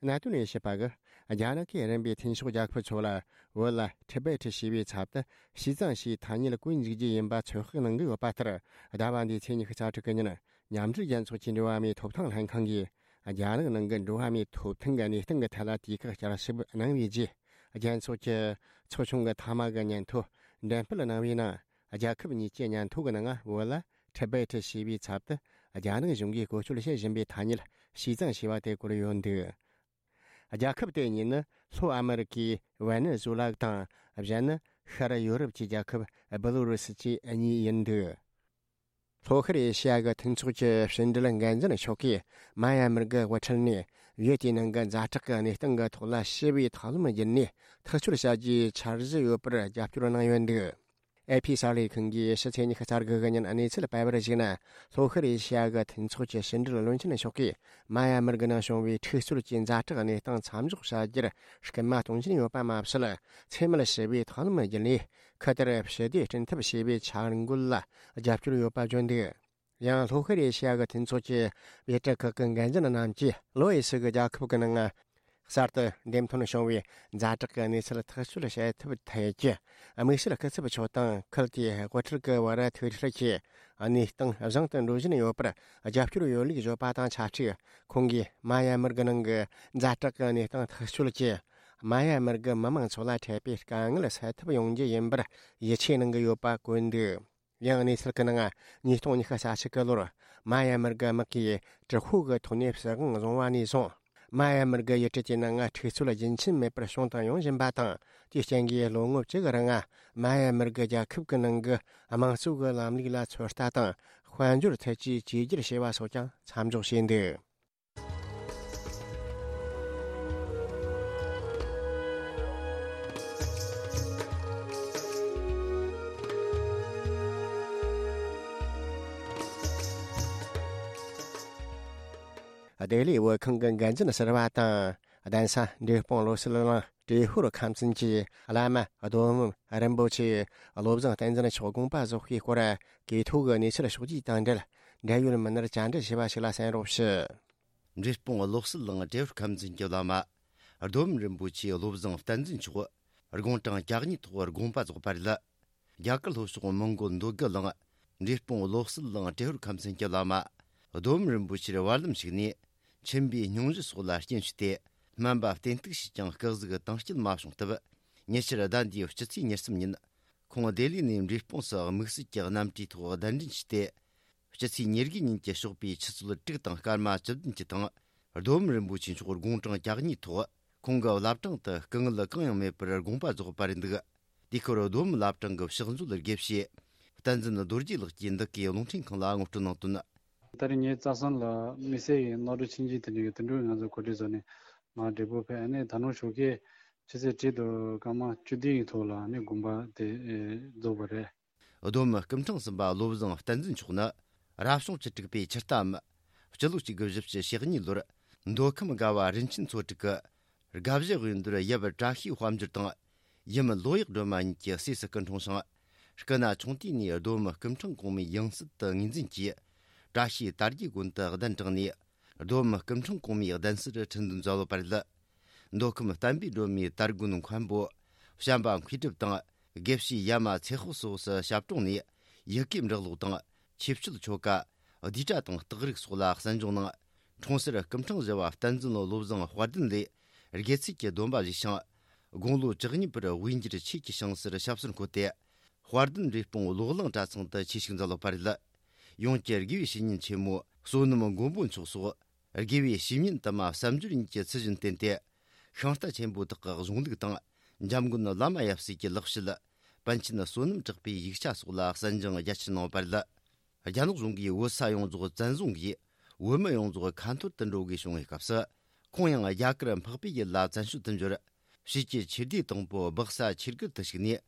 གནད་དོན་དབྱེ་ཞིབ་པ་གིས་རྒྱ་ནག་གིས་རིམ་པས་མཐུན་ཕྱོགས་རྒྱལ་ཁབ་ཚོ་ལ་བོད་ལ་ཊི་བེ་ཊི་ཞེས་པའི་ཚབ་ཏུ་ཞི་ཙང་ཞེས་ཐ་སྙད་བཀོད་འཇུག་རྒྱུ་ཡིན་པ་ཚོད་དཔག་གནང་གི་ཡོད་པ་ལྟར། ཟླ་བ་འདིའི་ཚེས་ཉི་ཤུ་རྩ་དྲུག་གི་ཉིན། མཉམ་འབྲེལ་རྒྱལ་ཚོགས་ཀྱི་འགྲོ་བ་མིའི་ཐོབ་ཐང་ལྷན་ཁང་གིས་རྒྱ་ནག་ནང་གི་འགྲོ་བ་མིའི་ཐོབ་ཐང་གི་གནས་སྟངས་ཀྱི་ཐད་ལ་དུས་བཀག་བསྐྱར་ཞིབ་གནང་བའི་རྗེས། རྒྱལ་ཚོགས་ཀྱི་ཚོགས་ཆུང་གི་མཐའ་མ་གི་སྙན་ཐོ་འགྲེམས་སྤེལ་གནང་བའི་ནང་། རྒྱལ་ཁབ་གཉིས་ཀྱི་སྙན་ཐོ་གི་ནང་བོད་ལ་ཊི་བེ་ཊི་ཞེས་པའི་ཚབ་ཏུ་རྒྱ་ནག་གཞུང་གིས་བཀོལ་སྤྱོད་བྱེད་བཞིན་པའི་ཐ་སྙད་ཞི་ཙང་ཞེས་པ་དེ་བཀོད་ཡོད་འདུག། རྒྱལ་ཁབ་དེ་གཉིས་ནི་ལྷོ་ཨ་མེ་རི་ཀའི་ཝེ་ནེ་ཛུ་ལ་དང་། གཞན་ནི་ཤར་ཡོ་རོབ་ཀྱི་རྒྱལ་ཁབ་བེ་ལོ་རུ་སི་བཅས་གཉིས་ཡིན་འདུག། ལྷོ་ཤར་ཨེ་ཤི་ཡ་གི་མཐུན་ཚོགས་ཀྱི་ཕྱི་འབྲེལ་འགན་འཛིན་མཆོག་གིས་མ་ཡ་མར་གྱི་དབུ་ཁྲིད་ནས་ཡུལ་དེའི་ནང་གི་ཛ་དྲག་གི་གནས་སྟངས་ཀྱི་ཐོག་ལ་ཞི་བའི་ཐབས་ལམ་བརྒྱུད་ནས་ཐག་གཅོད་བྱ་རྒྱུའི་འཆར་གཞི་ཡོད་པར་རྒྱབ་སྐྱོར་གནང་ཡོད་འདུག། ཨེ་ཕི་གསར་ལས་ཁང་གིས་ཕྱི་ཚེས་ཉི་ཤུ་རྩ་དགུ་གི་ཉིན་གནས་ཚུལ་སྤེལ་བར་གཞིགས་ན། ལྷོ་ཤར་ཨེ་ཤི་ཡ་གི་མཐུན་ཚོགས་ཀྱི་ཕྱི་འབྲེལ་བློན་ཆེན་མཆོག་གིས་མ་ཡ་མར་གྱི་ནང་བྱུང་བའི་འཁྲུག་རྩོད་ཀྱི་ཛ་དྲག་གནས་སྟངས་མཚམས་འཇོག་བྱ་རྒྱུར་སྐུལ་མ་གཏོང་བཞིན་ཡོད་པ་མ་ཟད། འཚེ་མེད་ཞི་བའི་ཐབས་ལམ་བརྒྱུད་ནས་ཁུ་དར་ཞི་བདེ་སྐྲུན་ཐབས་བྱེད་པའི་འཆར་འགོད་ལ་རྒྱབ་སྐྱོར་ཡོད་པ་བརྗོད་འདུག། ཡང་ལྷོ་ཤར་ཨེ་ཤི་ཡ་གི་མཐུན་ཚོགས་ཀྱི་བྱེད་སྒྲུབ་ཁག་གི་འགན་འཛིན་རྣམས་ཀྱིས་ལྷོ་ཨེ་ཤི་གི་རྒྱལ་ཁབ་ཀྱི་ནང་གསར་དུ་འདེམས་ཐོན་བྱུང་བའི་ཛ་དྲག་གི་གནས་ཚུལ་ཐག་གཅོད་བྱེད་ཐབས་ཐད་ཀྱི་དམིགས་བསལ་སྐུ་ཚབ་མཆོག་དང་ཁུལ་དེའི་དབུ་ཁྲིད་ཀྱི་བར་ཐུག་འཕྲད་ཀྱིས་གནས་སྟངས་བཟང་དུ་འགྲོ་བཞིན་ཡོད་པར་རྒྱབ་སྐྱོར་ཡོད་ལུགས་བརྗོད་པ་དང་ཆབས་ཅིག། ཁོང་གིས་མ་ཡ་མར་གྱི་ནང་གི་ཛ་དྲག་གི་གནས་སྟངས་ཐག་གཅོད་ཀྱིས་མ་ཡ་མར་གྱི་མི་མང་ཚོ་ལ་འཕྲད་པའི་དཀའ་ངལ་སེལ་ཐབས་ཡོང་རྒྱུ་ཡིན་པར་ཡིད་ཆེས་གནང་གི་ཡོད་པ་བཀོད་འདུག། ཡང་གནས་ཚུལ་གྱི་ནང་། ཉིས་སྟོང་ཉི་ཤུ་རྩ་གཅིག་གི་ལོར། མ་ཡ་མར་གྱི་དམག་གིས་དྲག་ཤུགས་ཀྱི་ཐོག་ནས་སྲིད་དབང་བཟུང་བ་ནས་བཟུང་། མ་ཡ་མར་གྱི་ཡུལ་གྲུ་དེའི་ནང་འཁྲུག་རྩོད་རྒྱུན་ཆད་མེད་པར་བྱུང་དང་ཡོང་བཞིན་པ་དང་། དེའི་རྐྱེན་གྱིས་ལོ་ངོ་བཅུ་གི་རིང་། མ་ཡ་མར་གྱི་རྒྱལ་ཁབ་ཀྱི་ནང་གི་དམངས་གཙོ་གི་ལམ་ལུགས་ལ་ཚོད་ལྟ་དང་། དཔལ་འབྱོར་ཐད་ཀྱི་བཅོས་བསྒྱུར་བྱས་པ་སོགས་ཀྱང་མཚམས་འཇོག་བྱས་འདུག། ལྡི་ལི་བོད་ཁང་གི་འགན་འཛིན་ཟུར་པ་དང་། གདན་ས་འབྲས་སྤུངས་བློ་གསལ་གླིང་ཏྲེ་ཧོར་ཁམས་ཚན་གྱི་བླ་མ་རྡོ་སྨིན་རིན་པོ་ཆེ་བློ་བཟང་བསྟན་འཛིན་མཆོག་དགོངས་པ་རྫོགས་པའི་སྐོར་གོ་ཐོས་ཀྱི་གནས་ཚུལ་ཕྱོགས་བསྡུས་དང་འབྲེལ། འབྲེལ་ཡོད་མི་སྣར་བཅར་འདྲི་ཞུས་པ་ཞིག་ལ་གསན་རོགས་ཞུ། འབྲས་སྤུངས་བློ་གསལ་གླིང་ཏྲེ་ཧོར་ཁམས་ཚན་གྱི་བླ་མ་རྡོ་སྨིན་རིན་པོ་ཆེ་བློ་བཟང་བསྟན་འཛིན་མཆོག་དགུང་གྲངས་གྱ་གཉིས་ཐོག་དགོངས་པ་རྫོགས་པ་རེད། རྒྱ་གར་ལྷོ་ཕྱོགས་མོན་གོལ་འདོད་རྒུ་གླིང་འབྲས་སྤུངས་བློ་གསལ་གླིང་ཏྲེ་ཧོར་ཁམས་ཚན་གྱི་བླ་མ་རྡོ་སྨིན་རིན་པོ་ཆེར་བར་ལམ་ཞིག་ནས་མཆིན་པའི་སྙུང་གཞི་སོགས་ལ་རྐྱེན་བྱས་ཏེ་སྨན་པ་བསྟེན་གཏུགས་བྱས་ཀྱང་སྐུ་གཟུགས་དྭངས་སྐྱིད་མ་བྱུང་སྟབས། ཉེ་ཆར་ཟླ་འདིའི་སྤྱི་ཚེས་ཉེར་གསུམ་ཉིན་ཁོང་ལྡི་ལི་ནས་འབྲས་སྤུངས་སུ་དམིགས་བསལ་གྱི་གནམ་གྲུའི་ཐོག་གདན་འདྲེན་བྱས་ཏེ། སྤྱི་ཚེས་ཉེར་དགུ་ཉིན་གྱི་ཞོགས་པའི་ཆུ་ཚོད་དྲུག་དང་སྐར་མ་བཅུ་བདུན་གྱི་སྟེང་རྡོ་སྨིན་རིན་པོ་ཆེ་མཆོག་དགུང་གྲངས་གྱ་གཉིས་ཐོག་ཁོང་གི་བླ་བྲང་དུ་སྐུ་ངལ་གང་ཡང་མེད་པར་དགོངས་པ་རྫོགས་པ་རེད་འདུག། དེའི་སྐོར་རྡོ་སྨིན་བླ་བྲང་གི་ཕྱག་མཛོད་དགེ་བཤེས་བསྟན་འཛིན་རྡོ་རྗེ་ལགས་ཀྱིས་འདི་གའི་རླུང་འཕྲིན་ཁང་ལ་ངོ་སྤྲོད་གནང་དོན། ད་རེས་ངའི་རྩ་བསམ་ལ་དམིགས་བསལ་གྱི་རྣོ་དྲུག་ཆིངས་ཀྱི་དེ་འདྲའི་དེ་འདྲའི་ང་ཚོ་གོ་སྒྲིག་བཟོས་ནས་ང་འབྲས་སྤུངས་ཕེབས། ཨ་ནི་ད་ནངས་ཞོགས་ཀས་ཆུ་ཚོད་དྲུག་དང་སྐར་མ་བཅུ་བདུན་གྱི་ཐོག་ལ་ཨ་ནི་དགོངས་པ་དེ་རྫོགས་པ་རེད། རྡོ་སྨིན་སྐུ་ཕྲེང་གསུམ་པ་བློ་བཟང་བསྟན་འཛིན་མཆོག་ནི་ རབ་བྱུང་བཅུ་དྲུག་པའི་ཕྱི་ཟླའམ། སྤྱི་ལོ་གཅིག་དགུ་བཞི་བཅུ་ཞེ་གཉིས་ལོར་མདོ་ཁམས་སྒ་བ་རིན་ཆེན་མཚོ་དྲུག་གི་དགའ་བཞི་དབོན་རྡོར་ཡབ་བཀྲ་ཤིས་དཔལ་འབྱོར་དང་ཡུམ་ལོ་ཡག་སྒྲོལ་མ་གཉིས་ཀྱི་སྲས་སུ་སྐུ་འཁྲུངས་ཤིང་། སྐུ་ན་ཆུང་དུས་ནས་རྡོ་མི་སྐུ་ཕྲེང་གོང་མའི་ཡང་སྲིད་དུ་ངོས་འཛིན་གྱིས། བཀྲ་ཤིས་དར་རྒྱས་དགོན་དུ་གདན་དྲངས་ནས། རྡོ་མི་སྐུ་ཕྲེང་གོང་མའི་གདན་སར་ཁྲི་འདོན་མཛད་ཡོད་པ་རེད། མདོ་ཁམས་བསྟན་པའི་སྒྲོན་མེའི་དར་དགོན་མཁན་པོ་བྱམས་པ་མཁས་གྲུབ་དང་། དགེ་བཤེས་ཡ་མ་ཚེ་དཔོག་སོགས་སུ་ཞབས་དྲུང་ནས། ཡི་གེ་འབྲི་ཀློག་དང་། ཆོས་སྤྱོད་ཆོ་ག། བསྡུས་གྲྭ་དང་རྟགས་རིགས་སོགས་ལ་གསན་སྦྱོང་གནང་། འཁྲུངས་སར་སྐུ་ཕྲེང་བཞི་བ་བསྟན་འཛིན་བློ་བཟང་དཔལ་ལྡན་ལས་དགེ་ཚུལ་གྱི་སྡོམ་པ་བཞེས་ཤིང་། དགུང་ལོ་བཅུ་གཉིས་པར་དབུས་འགྱུར་ཆོས་ཀྱི་ཞིང་སར་ཞབས་སོར་འཁོད་དེ། དཔལ་ལྡན་འབྲས་སྤུངས་ལོག་གླིང་གྲྭ་ཚང་དུ་ཆོས་ཞུགས་མཛད་ཡོད་པ་རེད། ཡོངས་ཀྱི་དགེ་བའི་བཤེས་གཉེན་ཆེན་མོ་བསོད་ནམས་མགོན་པོ་མཆོག་སོགས། དགེ་བའི་བཤེས་གཉེན་དུ་མ་བསམ་སྦྱོར་གཉིས་ཀྱི་ཚུལ་བཞིན་བསྟེན་ཏེ། ཤིང་རྟ་ཆེན་པོ་དག་གི་གཞུང་ལུགས་དང་། འཇམ་མགོན་བླ་མ་ཡབ་སྲས་ཀྱི་ལེགས་བཤད། པཎ་ཆེན་བསོད་ནམས་གྲགས་པའི་ཡིག་ཆ་སོགས་ལ་གསན་སྦྱོང་རྒྱ་ཆེར་གནང་བ་རེད། རྒྱ་ནག་གཞུང་གིས་བོད་ས་ཡོངས་རྫོགས་བཙན་བཟུང་གིས། བོད་མི་ཡོངས་རྫོགས་ཁ་འཐོར་དུ་འགྲོ་དགོས་བྱུང་བའི་སྐབས་སུ། ཁོང་ཡང་རྒྱ་གར་འཕགས་པའི་ཡུལ་ལ་བཙན་བྱོལ་དུ་འབྱོར། ཕྱིས་ཀྱི་ཆོས་སྡེ་དང་པོ་སྦག་ས་ཆོས་སྒར་དུ་ཞུགས་ནས།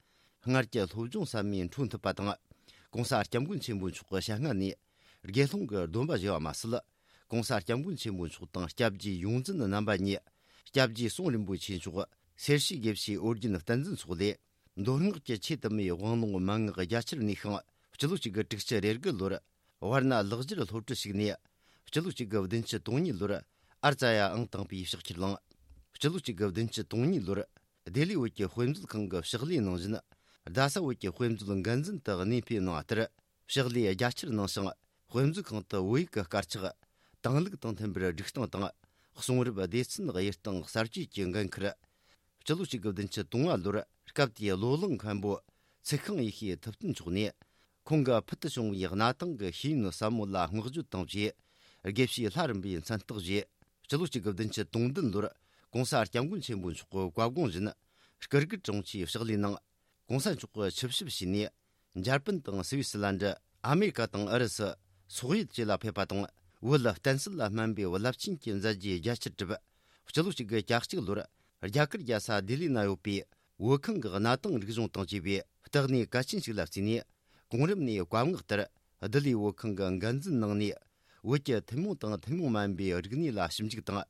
སྔར་གྱི་སློབ་སྦྱོང་ཟབ་མོས་འཕྲོ་མཐུད་པ་དང་། ྋགོང་ས་ྋསྐྱབས་མགོན་ཆེན་པོ་མཆོག་གི་ཞལ་སྔ་ནས། དགེ་སློང་གི་སྡོམ་པ་བཞེས་པ་མ་ཟད། ྋགོང་ས་ྋསྐྱབས་མགོན་ཆེན་པོ་མཆོག་དང་སྐྱབས་རྗེ་ཡོངས་འཛིན་རྣམ་པ་གཉིས། སྐྱབས་རྗེ་ཟུང་རིན་པོ་ཆེ་མཆོག་སེར་བྱེས་དགེ་བཤེས་ཨོ་རྒྱན་བསྟན་འཛིན་སོགས་ལས། མདོ་སྔགས་ཀྱི་ཆོས་དུ་མའི་དབང་ལུང་མན་ངག་རྒྱ་ཆེར་གནས་ཤིང་། སྤྱི་ལོ་གཅིག་དགུ་དྲུག་ཅུ་རེ་དགུ་ལོར། ཝར་ན་ལག་འཁྱེར་སློབ་གྲྭར་ཞུགས་ནས། སྤྱི་ལོ་གཅིག་དགུ་བདུན་ཅུ་དོན་གཉིས་ལོར། ཨར་ཙ་ཡ་ཨང་དང་པོའི་ཕྱག་འཁྱེར་བླངས། སྤྱི་ལོ་གཅིག་དགུ་བདུན་ཅུ་དོན་གཉིས་ལོར། ལྡི་ལི་བོད་ཀྱི་དཔེ་མཛོད་ཁང་གི་ཕྱག་ལས་ནང་བཞིན། རྡ་ས་བོད་ཀྱི་དཔེ་མཛོད་འགན་འཛིན་དུ་གནས་སྤོས་གནང་བ་ལྟར། ཕྱག་ལས་རྒྱ་ཆེར་གནང་ཞིང་། དཔེ་མཛོད་ཁང་དུ་བོད་ཡིག་གི་དཀར་ཆག་དང་ལུགས་དང་མཐུན་པར་སྒྲིག་སྟངས་དང་། གསུང་རབ་སྡེ་ཚན་དབྱེ་སྟངས་གསར་བཅོས་ཀྱི་འགན་ཁུར། སྤྱི་ལོ་གཅིག་དགུ་བདུན་ཅུ་དོན་ལྔ་ལོར་སྐབས་དེའི་བློ་བཟང་མཁན་པོ་ཚེ་ཤིང་ཡེ་ཤེས་ཐུབ་བསྟན་མཆོག་ནས། ཁོང་གི་ཕུལ་དུ་བྱུང་བའི་གནའ་དེང་གི་ཤེས་ཡོན་ཟབ་མོ་ལ་བསྔགས་བརྗོད་དང་བཅས། དགེ་བཤེས་ལྷ་རམས་པའི་མཚན་རྟགས་བཞེས། སྤྱི་ལོ་གཅིག་དགུ་བདུན་ཅུ་དོན་བདུན་ལོར་ྋགོང་ས་ྋསྐྱབས་མགོན་ཆེན་པོ་མཆོག་གི་བཀའ་དགོངས་བཞིན། སྐུ་སྒེར་དྲུང་ཆེའི་ཕྱག་ལས་གནང་། ྋགོང་ས་མཆོག་གི་ཆིབས་ཞབས་ཕྱིས་ནས། འཇར་པན་དང་སི་བི་སི་ལན་ཌི། ཨ་མེ་རི་ཀ་དང་ཨུ་རུ་སུ། སོག་ཡུལ་བཅས་ལ་ཕེབས་པ་དང་། བོད་ལ་བསྟན་སྲིད་ལ་སྨན་པའི་རླབས་ཆེན་གྱི་མཛད་རྗེས་རྒྱ་ཆེར་བསྒྲུབས། སྤྱི་ལོ་གཅིག་དགུ་གྱ་གཅིག་ལོར། རྒྱ་གར་རྒྱལ་ས་ལྡི་ལི་ན་ཡོད་པའི་བོད་ཁང་གི་གནའ་དེང་རིག་གཞུང་དང་བཅས་པའི་བརྟག་གནས་གལ་ཆེན་ཞིག་ལ་བརྩིས་ནས། གོང་རིམ་ནས་བཀའ་མངགས་ལྟར། ལྡི་ལིའི་བོད་ཁང་གི་འགན་འཛིན་གནང་ནས། བོད་ཀྱི་ཐུན་མོང་དང་ཐུན་མོང་མ་ཡིན་པའི་རིག་གནས་ལ་ཞིབ་འཇུག་དང་།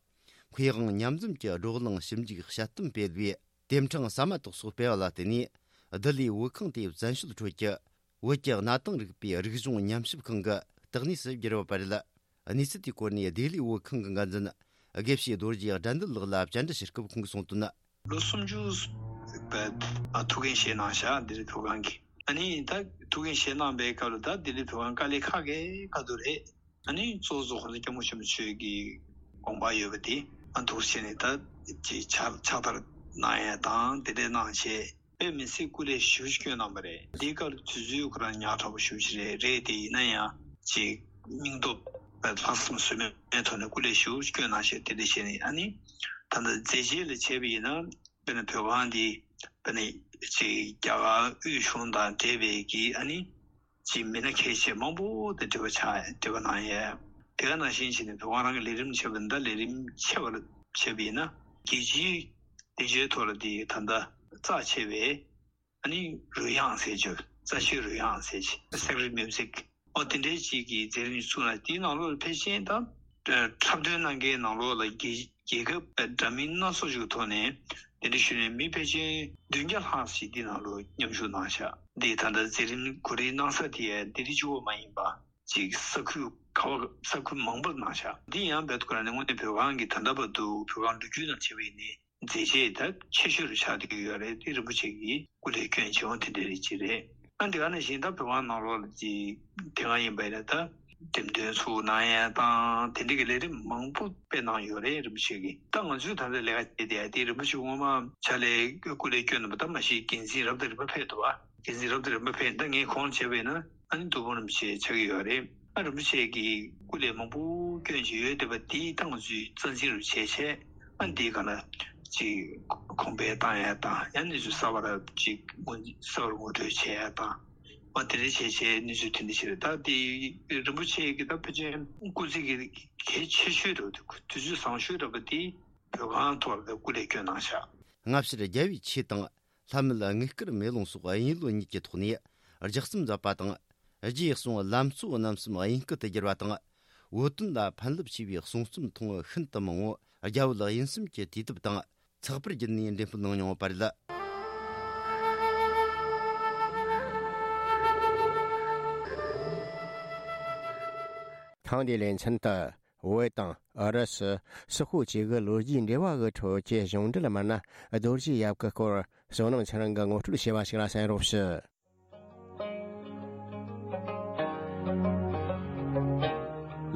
མཁས་དབང་མཉམ་འཛོམས་ཀྱི་བགྲོ་གླེང་ཞིབ་འཇུག་དཔྱད་གཏམ་སྤེལ་བའི། དེབ་ཕྲེང་ཟ་མ་ཏོག་སོགས་སྤེལ་བ་ལ་བརྟེན་ནས། ལྡི་ལིའི་བོད་ཁང་དེ་བཙན་བྱོལ་ཁྲོད་ཀྱི་བོད་ཀྱི་གནའ་དེང་རིག་པའི་རིག་གཞུང་ཉམས་ཞིབ་ཁང་གི་བརྟག་གནས་སུ་གྱུར་ཡོད་པ་རེད། གནས་ཚུལ་དེའི་སྐོར་ནས་ལྡི་ལིའི་བོད་ཁང་གི་འགན་འཛིན་དགེ་བཤེས་རྡོ་རྗེ་དགྲ་འདུལ་ལགས་ལ་བཅར་འདྲི་ཞུ་སྐབས་ཁོང་གིས་གསུངས་དོན། ལོ་སུམ་ཅུ་པའི་ཐུགས་འགན་བཞེས་གནང་བཞག་ལྡི་ལི་བོད་ཁང་གི། ཨ་ནི་ད་ཐུགས་འགན་བཞེས་གནང་པའི་སྐབས་ལ་ད་ལྡི་ལི་བོད་ཁང་དཀའ་ལས་ཁག་གི་ཁག་འདུག་རེད། ཨ་ནི་གཙོ་བོ་ཁོང་ཚོ་སྐྱབས་མགོན་ཆེན་པོ་མཆོག་གི་དགོངས་པ་ཡོད་པ་དེ་ཨ་འདུག་བྱས་ནས་ད་ཅིག་ཕྱག་ཕྱག་བསྟར་གནང་ཡ་དང་དེ་འདྲས་གནང་བྱས་དཔེ་མི་སྲིད་སྐུ་ལས་ཞེ་པོ་ཅིག་བསྐྱོན་གནང་པ་རེད། འདིའི་སྐབས་དུས་ཚོད་ཁོ་རང་ཉག་ཕྲ་པོ་ཞེ་པོ་ཅིག་རེད། རེད་དེ་ཡིན་ན་ཡང་ཅིག་སྙིང་སྟོབས་ལྷག་བསམ་ཟོལ་མེད་ཐོག་ནས་སྐུ་ལས་ཞེ་པོ་ཅིག་བསྐྱོན་གནང་བྱས་དེ་འདྲས་བྱས་ནས་ཨ་ནི་ད་ལྟ་མཛད་རྗེས་ལ་བྱས་པ་ཡིན་ན། དཔེར་ན་བོད་ཁང་འདི་དཔེར་ན་ཅིག་རྒྱ་གར་དབུས་གཞུང་དང་འབྲེལ་བའི་གི་ཨ་ནི་ཅིག་མི་སྣ་གལ་ཆེ་མང་པོ་དང་འབྲེལ་བ་ཆགས་འབྲེལ་བ་གནང་ཡས། དེ་ག་ནང་བཞིན་བྱས་ནས་བོད་ཁང་རང་གི་ལས་རིམ་ཆེ་བ་འདི་ལས་རིམ་ཆེ་བ་ལ་བྱས་པ་ཡིན་ན་རྒྱལ་སྤྱིའི་སྡིངས་ཆའི་ཐོག་ལ་འདི་ད་ལྟ་རྩ་ཆེ་བའི་ཨ་ནི་རོལ་དབྱངས་ཟེར་རྒྱུ། རྩ་ཆེའི་རོལ་དབྱངས་ཟེར་རྒྱུ། Sacred Music། ཨོ་དེ་འདྲའི་ཅིག་གི་མཛད་རིམ་ཞིག་བཙུགས་ན་དེའི་ནང་ལོགས་ལ་ཕལ་ཆེར་ད་འཁྲབ་སྟོན་གནང་མཁན་ནང་ལོགས་ལ་རྒྱལ་རྒྱལ་ཁབ་འདྲ་མིན་སྣ་ཚོགས་ཤིག་གི་ཐོག་ནས་དེ་འདྲ་ཞུས་ནས་མི་ཕལ་ཆེར་བདུན་བརྒྱ་ལྷག་ཞིག་འདི་ནང་ལོགས་མཉམ་ཞུགས་གནང་ཤག་འདི་ད་ལྟ་མཛད་རིམ་གོ་སྒྲིག་གནང་ས་དེ་ཡང་ལྡི་ལི་གཅིག་པོ་མ་ཡིན་པ་ཅིག་ས་ཁུལ་ག་བ་ས་ཁུལ་མང་པོར་གནང་ཤག་འདི་ཡང་རྦད་དེ་ཁོ་རང་ནས་དངོས་གནས་བོད་ཁང་གི་ད་ལྟ་བར་དུ་བོད་ཁང་ལོ་རྒྱུས་ནང་བྱས་པ་ཡིན་ནའི། མཛད་རྗེས་ད་ཆེ་ཤོས་རུ་ཆགས་བསྡད་ཀྱི་ཡོད་རེད། དེ་རིན་པོ་ཆེ་གིས་སྐུ་ལས་བསྐྱོན་བྱས་འོང་དེ་འདྲ་རེད་ཅེས་རེད། ཨ་འདི་ག་ནང་བཞིན་ད་བོད་ཁང་ནང་ལོགས་ལ་ཅིག་དེ་སྔ་ཡིན་པ་ཡིན་ན་ད་འགྲེམས་སྟོན་ཚུགས་གནང་ཡ་དང་དེ་འདྲ་གི་ལས་རིམ་མང་པོ་སྤེལ་གནང་ཡོད་རེད་རིན་པོ་ཆེ་གིས། ད་ང་ཚོས་ད་ལྟ་ལས་ཀ་བྱས་བསྡད་ཡ་དེ་རིན་པོ་ཆེ་སྔོན་མ་ཕྱག་ལས་སྐུ་ལས་བསྐྱོན་གནང་པ་ད་མ་གཞི་འགན་འཛིན་རབ་དང་རིམ་པ་ཕེབས་འདུག་བ། འགན་འཛིན་རབ་དང་རིམ་པ་ཕེབས་ད་ངས་གོང་བྱས་པ་ཡིན་ན་ཨ་ནི་ཐུགས་ཕམ་རིན་པོ་ཆེ་ཆགས་ཀྱི་ཡོད་རེད། ཨ་རིན་པོ་ཆེ་གིས་སྐུ་ལས་མང་པོ་བསྐྱོན་བཞིན་ཡོད་བསྡད་པ་དེའི་སྟེང་ང་ཚོས་རྩ་འཛིན་རུ་བྱས་བྱས་ཨ་འདིའི་སྒང་ལ་ཅིག་གོང་འཕེལ་བཏང་ཡ་དང་ཡང་གནས་ཚུལ་གསར་པ་ར་ཅིག་ངོ་གསར་པར་ངོ་སྤྲོད་བྱས་ཡ་དང་ཨ་དེ་འདྲ་བྱས་བྱས་གནས་ཚུལ་དེ་འདྲ་ཞིག་རེད། ད་དེ་རིན་པོ་ཆེ་གི་ད་ཕལ་ཆེར་སྐུ་ཚེ་གི་གལ་ཆེ་ཤོས་རེད། དུས་ཚོད་བཟང་ཤོས་རེད་པ་དེ་བོད་ཁང་ཐོག་ལ་སྐུ་ལས་བསྐྱོན་གནང་ཤག་སྔ་ཕྱིར་རྒྱལ་བའི་ཆོས་དང་། ལྷ་མིའི་དངུལ་དཀར་མེ་ལོང་སོགས་དབྱིན་ཡུལ་གཉིས་ཀྱི་ཐོག་ནས་ལྗགས་རྩོམ་མཛད་པ་དང་ རྗེས་གསུང་ལམ་གཙོ་རྣམ་གསུམ་དབྱིན་སྐད་དུ་བསྒྱུར་བ་དང་། བོད་དོན་ལ་ཕན་རླབས་ཆེ་བའི་གསུང་རྩོམ་ཐུང་ངུ་ཤིན་ཏུ་མང་བོ་རྒྱ་བོད་དབྱིན་གསུམ་གྱི་དུས་དེབ་དང་ཚགས་པར་བརྒྱུད་ནས་འགྲེམས་སྤེལ་གནང་མྱོང་བ་རེད། ཐེངས་འདིའི་ལེ་ཚན་དུ། བོད་དང་ཨུ་རུ་སུ་སོག་པོ་བཅས་ཀྱི་ལོ་རྒྱུས་འབྲེལ་བ་གི་ཁྲོད་ཀྱི་གཞུང་འབྲེལ་མི་སྣ་རྡོ་རྗེ་ཡབ་ཀྱི་སྐོར་བསོད་ནམས་ཚེ་རིང་གིས་ངོ་སྤྲོད་བྱས་པ་ཞིག་ལ་གསན་རོགས་ཞུ།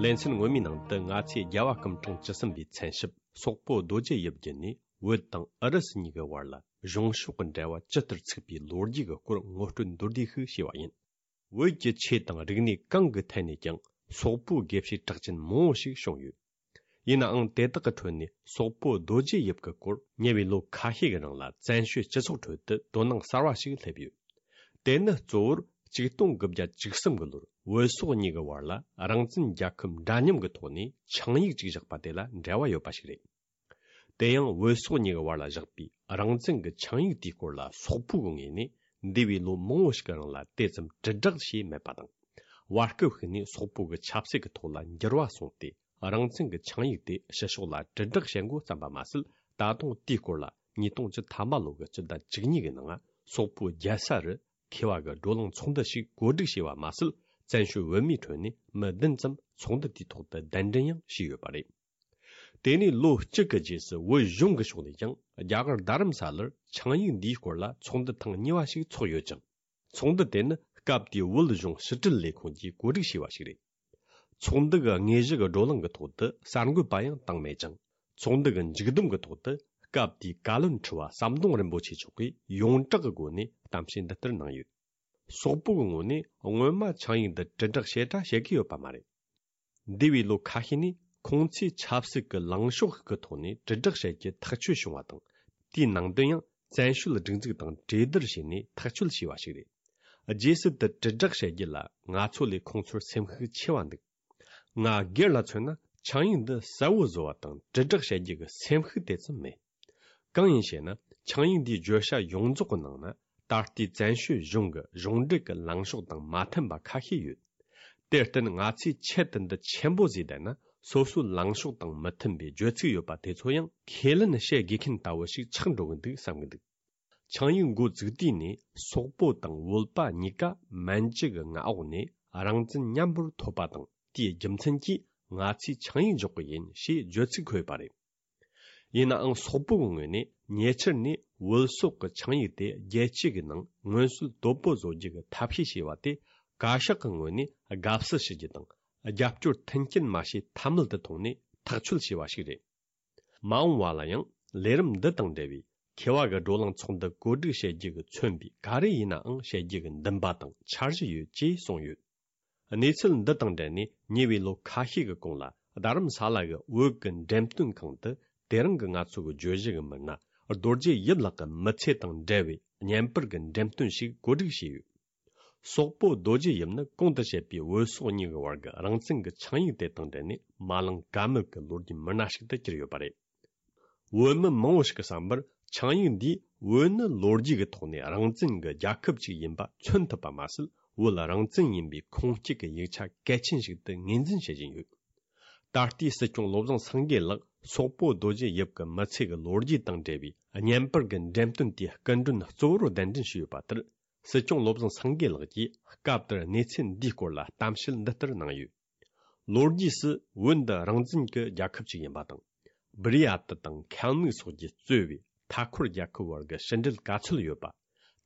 ལེ་ཚན་སྔོན་མའི་ནང་དུ་ང་ཚོས་རྒྱལ་བ་སྐུ་ཕྲེང་བཅུ་གསུམ་པའི་མཚན་ཞབས་སོག་པོ་རྡོ་རྗེ་ཡབ་བརྒྱུད་ནས་བོད་དང་ཨུ་རུ་སུ་གཉིས་ཀྱི་བར་ལ་གཞུང་ཕྱོགས་ཀྱི་འབྲེལ་བ་ཇི་ལྟར་ཚུགས་པའི་ལོ་རྒྱུས་ཀྱི་སྐོར་ངོ་སྤྲོད་མདོར་བསྡུས་ཤིག་བྱས་པ་ཡིན། བོད་ཀྱི་ཆོས་དང་རིག་གནས་གང་གི་ཐད་ནས་ཀྱང་སོག་པོའི་དགེ་བཤེས་གྲགས་ཅན་མང་བོ་ཞིག་བྱུང་ཡོད། ཡིན་ནའང་དེ་དག་གི་ཁྲོད་ནས་སོག་པོ་རྡོ་རྗེ་ཡབ་ཀྱི་སྐོར་ཉེ་བའི་ལོ་ཁ་ཤས་ཀྱི་རིང་ལ་བཙན་བྱོལ་སྤྱི་ཚོགས་ཁྲོད་དུ་དོ་སྣང་གསར་བ་ཞིག་སླེབས་ཡོད། དེ་ནི་གཙོ་བོར་ཆིག་སྟོང་དགུ་བརྒྱ་བཅུ་གསུམ་གྱི་ལོར་བོད་སོག་གཉིས་ཀྱི་བར་ལ་རང་བཙན་རྒྱལ་ཁབ་འདྲ་མཉམ་གྱི་ཐོག་ནས་ཆིངས་ཡིག་ཅིག་བཞག་པ་དེ་ལ་འབྲེལ་བ་ཡོད་པ་ཞིག་རེད། དེ་ཡང་བོད་སོག་གཉིས་ཀྱི་བར་ལ་བཞག་པའི་རང་བཙན་གྱི་ཆིངས་ཡིག་དེའི་སྐོར་ལ་སོག་པོའི་ངོས་ནས་འདས་པའི་ལོ་མང་བོ་ཞིག་གི་རིང་ལ་དེ་ཙམ་དྲིལ་བསྒྲགས་བྱས་མེད་པ་དང་། བར་སྐབས་ཤིག་ནས་སོག་པོ་གི་ཆབ་སྲིད་ཀྱི་ཐོག་ལ་འགྱུར་བ་སོང་སྟེ། རང་བཙན་གྱི་ཆིངས་ཡིག་དེ་ཕྱི་ཕྱོགས་ལ་དྲིལ་བསྒྲགས་བྱེད་འགོ་བརྩམས་པ་མ་ཟད། ད་དུང་དེའི་སྐོར་ལ་ཉིས་སྟོང་བཅུ་ཐམ་པ་ལོ་གི་སྤྱི་ཟླ་བཅུ་གཉིས་ཀྱི་ནང་སོག་པོའི་རྒྱལ་ས་རུ་མཁས་པ་གི་བགྲོ་གླེང་ཚོགས་འདུ་ཞིག་གོ་སྒྲིག་བྱས་པ་མ་ཟད། བཙན་བྱོལ་བོད་མིའི་ཁྲོད་ནས་མི་བདུན་ཙམ་ཚོགས་འདུ་དེའི་ཐོག་ཏུ་གདན་འདྲེན་ཡང་བྱས་ཡོད་པ་རེད། དེ་ནས་ལོ་གཅིག་གི་རྗེས་སུ་བོད་གཞུང་གི་ཕྱོགས་ནས་ཀྱང་རྒྱ་གར་རྡ་རམ་ས་ལར་ཆིངས་ཡིག་འདིའི་སྐོར་ལ་ཚོགས་འདུ་ཐེངས་གཉིས་པ་ཞིག་ཚོགས་ཡོད་ཅིང་། ཚོགས་འདུ་དེ་ནི་སྐབས་དེའི་བོད་གཞུང་ཕྱི་དྲིལ་ལས་ཁུངས་ཀྱིས་གོ་སྒྲིག་བྱས་པ་ཞིག་རེད། ཚོགས་འདུ་གི་དངོས་གཞི་གི་བགྲོ་གླེང་གི་ཐོག་ཏུ་གསར་འགོད་པ་ཡང་བཏང་མེད་ཅིང་། ཚོགས་འདུ་གི་མཇུག་བསྡོམས་ཀྱི་ཐོག་ཏུ་སྐབས་དེའི་བཀའ་བློན་ཁྲི་པ་ཟམ་གདོང་རིན་པོ་ཆེ་མཆོག་གིས་ཡོངས་གྲགས་ཀྱི་སྒོ་ནས་གཏམ་བཤད་འདི་ལྟར་གནང་ཡོད། སོག་པོ་གི་ངོས་ནས་སྔོན་མ་ཆིངས་ཡིག་འདི་དྲིལ་བསྒྲགས་ཞེ་དྲག་བྱེད་ཀྱི་ཡོད་པ་མ་རེད། འདས་པའི་ལོ་ཁ་ཤས་ནས་ཁོང་ཚོས་ཆབ་སྲིད་ཀྱི་ལངས་ཕྱོགས་ཤིག་གི་ཐོག་ནས་དྲིལ་བསྒྲགས་བྱེད་རྒྱུ་ཐག་ཆོད་བྱུང་བ་དང་། དེའི་ནང་དོན་ཡང་བཙན་བྱོལ་སྒྲིག་འཛུགས་དང་གྲོས་བསྡུར་བྱས་ནས་ཐག་གཅོད་བྱས་པ་ཞིག་རེད། རྗེས་སུ་དེ་དྲིལ་བསྒྲགས་བྱེད་རྒྱུ་ལ་ང་ཚོ་ལས་ཁོང་ཚོར་སེམས་ཤུགས་ཆེ་བ་འདུག་ང་སྒེར་ལ་མཚོན་ན་ཆིངས་ཡིག་འདི་གསལ་བོ་བཟོ་བ་དང་དྲིལ་བསྒྲགས་བྱེད་རྒྱུ་གི་སེམས་ཤུགས་དེ་ཙམ་མེད། གང་ཡིན་ཞེ་ན། ཆིངས་ཡིག་འདིའི་བརྗོད་བྱ་ཡོངས་རྫོགས་ཀྱི་ནང་ན། ད་ལྟའི་བཙན་བྱོལ་གཞུང་གི་གཞུང་འབྲེལ་གྱི་ལངས་ཕྱོགས་དང་མ་མཐུན་པ་ཁ་ཤས་ཡོད། དེར་བརྟེན་ང་ཚོས་ཆེད་དུ་འདི་ཆེན་པོ་བཟོས་བསྡད་ན། སོ་སོའི་ལངས་ཕྱོགས་དང་མི་མཐུན་པའི་བརྗོད་ཚིག་ཡོད་པ་དེ་ཚོ་ཡང་ཁས་ལེན་བྱེད་དགོས་མཁན་ལྟ་བུ་ཞིག་ཆགས་འགྲོ་གི་འདུག་བསམ་གི་འདུག་ཆིངས་ཡིག་འགོ་བཙུགས་དུས་ནས་སོག་པོ་དང་བོད་པ་གཉིས་ཀ་མན་ཇུ་གི་མངའ་འོག་ནས་རང་བཙན་མཉམ་པོར་ཐོབ་པ་དང་། དེའི་རྒྱུ་མཚན་གྱིས་ང་ཚོས་ཆིངས་ཡིག་འཇོག་གི་ཡིན་ཞེས་བརྗོད་ཚིག་འཁོད་ཡོད་པ་རེད། ཡིན་ནའང་སོག་པོ་གི་ངོས་ནས་ཉེ་ཆར་ནས་བོད་སོག་གི་ཆིངས་ཡིག་དེ་རྒྱལ་སྤྱི་གི་ནང་མངོན་གསལ་དོད་པོ་བཟོ་རྒྱུ་གི་ཐབས་ཤེས་བྱས་པ་དེ། བཀའ་ཤག་གི་ངོས་ནས་དགའ་བསུ་ཞུ་རྒྱུ་དང་། རྒྱབ་སྐྱོར་མཐུན་རྐྱེན་མ་བྱས་ཐབས་མེད་དུ་མཐོང་ནས་ཐག་གཅོད་བྱས་པ་ཞིག་རེད། མ་འོངས་པ་ལ་ཡང་ལས་རིམ་འདི་དང་འབྲེལ་བའི་མཁས་པ་གི་བགྲོ་གླེང་ཚོགས་འདུ་གོ་སྒྲིག་བྱེད་རྒྱུ་གི་མཚོན་པའི་ག་རེ་ཡིན་ནའང་བྱེད་རྒྱུ་གི་འདུན་པ་དང་འཆར་གཞི་ཡོད་ཅེས་གསུངས་ཡོད། གནས་ཚུལ་འདི་དང་འབྲེལ་ནས་ཉེ་བའི་ལོ་ཁ་ཤས་ཀྱི་གོང་ལ་རྡ་རམ་ས་ལ་གི་བོད་ཀྱི་འགྲེམས་སྟོན་ཁང་དུ་དེ་རིང་གི་ང་ཚོ་གི་བརྗོད་གཞི་གི་མི་སྣ་རྡོ་རྗེ་ཡིབ་ལགས་ཀྱི་མི་ཚེ་དང་འབྲེལ་བའི་བརྙན་པར་གྱི་འགྲེམས་སྟོན་ཞིག་གོ་སྒྲིག་བྱས་ཡོད། སོག་པོ་རྡོ་རྗེ་ཡིབ་ནི་གོང་དུ་བཤད་པའི་བོད་སོག་གཉིས་ཀྱི་བར་གྱི་རང་བཙན་གྱི་ཆིངས་ཡིག་དེ་དང་འབྲེལ་ནས་མ་ལངས་ཀ་མེད་ཀྱི་ལོ་རྒྱུས་མི་སྣ་ཞིག་ཏུ་གྱུར་ཡོད་པ་རེད། བོད་མི་མང་བོ་ཞིག་གི་བསམ་པར་ཆིངས་ཡིག་འདིས་བོད་ནི་ལོ་རྒྱུས་ཀྱི་ཐོག་ནས་རང་བཙན་གྱི་རྒྱལ་ཁབ་ཅིག་ཡིན་པ་མཚོན་ཐུབ་པ་མ་ཟད། བོད་རང་བཙན་ཡིན་པའི་ཁུངས་སྐྱེལ་གྱི་ཡིག་ཆ་གལ་ཆེན་ཞིག་ཏུ་ངོས་འཛིན་བྱེད་བཞིན་ཡོད། ད་ལྟའི་སྲིད་སྐྱོང་བློ་བཟང་སེང་གེ་ལགས་སོག་པོ་རྡོ་རྗེ་ཡིབ་ཀྱི་མི་ཚེ་གི་ལོ་རྒྱུས་དང་འབྲེལ་བའི་བརྙན་པར་གྱི་འགྲེམས་སྟོན་དེའི་སྐུ་མགྲོན་གཙོ་བོར་གདན་འདྲེན་ཞུས་ཡོད་པ་ལྟར། སྲིད་སྐྱོང་བློ་བཟང་སེང་གེ་ལགས་ཀྱིས་སྐབས་དེར་གནས་ཚུལ་འདིའི་སྐོར་ལ་གཏམ་བཤད་འདི་ལྟར་གནང་ཡོད། ལོ་རྒྱུས་སུ་བོད་འདི་རང་བཙན་གྱི་རྒྱལ་ཁབ་ཅིག་ཡིན་པ་དང་། སྦུ་རི་ཡ་ཏི་དང་ཁལ་མིག་སོགས་ཀྱིས་གཙོས་པའི་མཐའ་འཁོར་རྒྱལ་ཁབ་བར་གྱི་ཕྱི་འབྲེལ་ག་ཚོད་ཡོད་པ།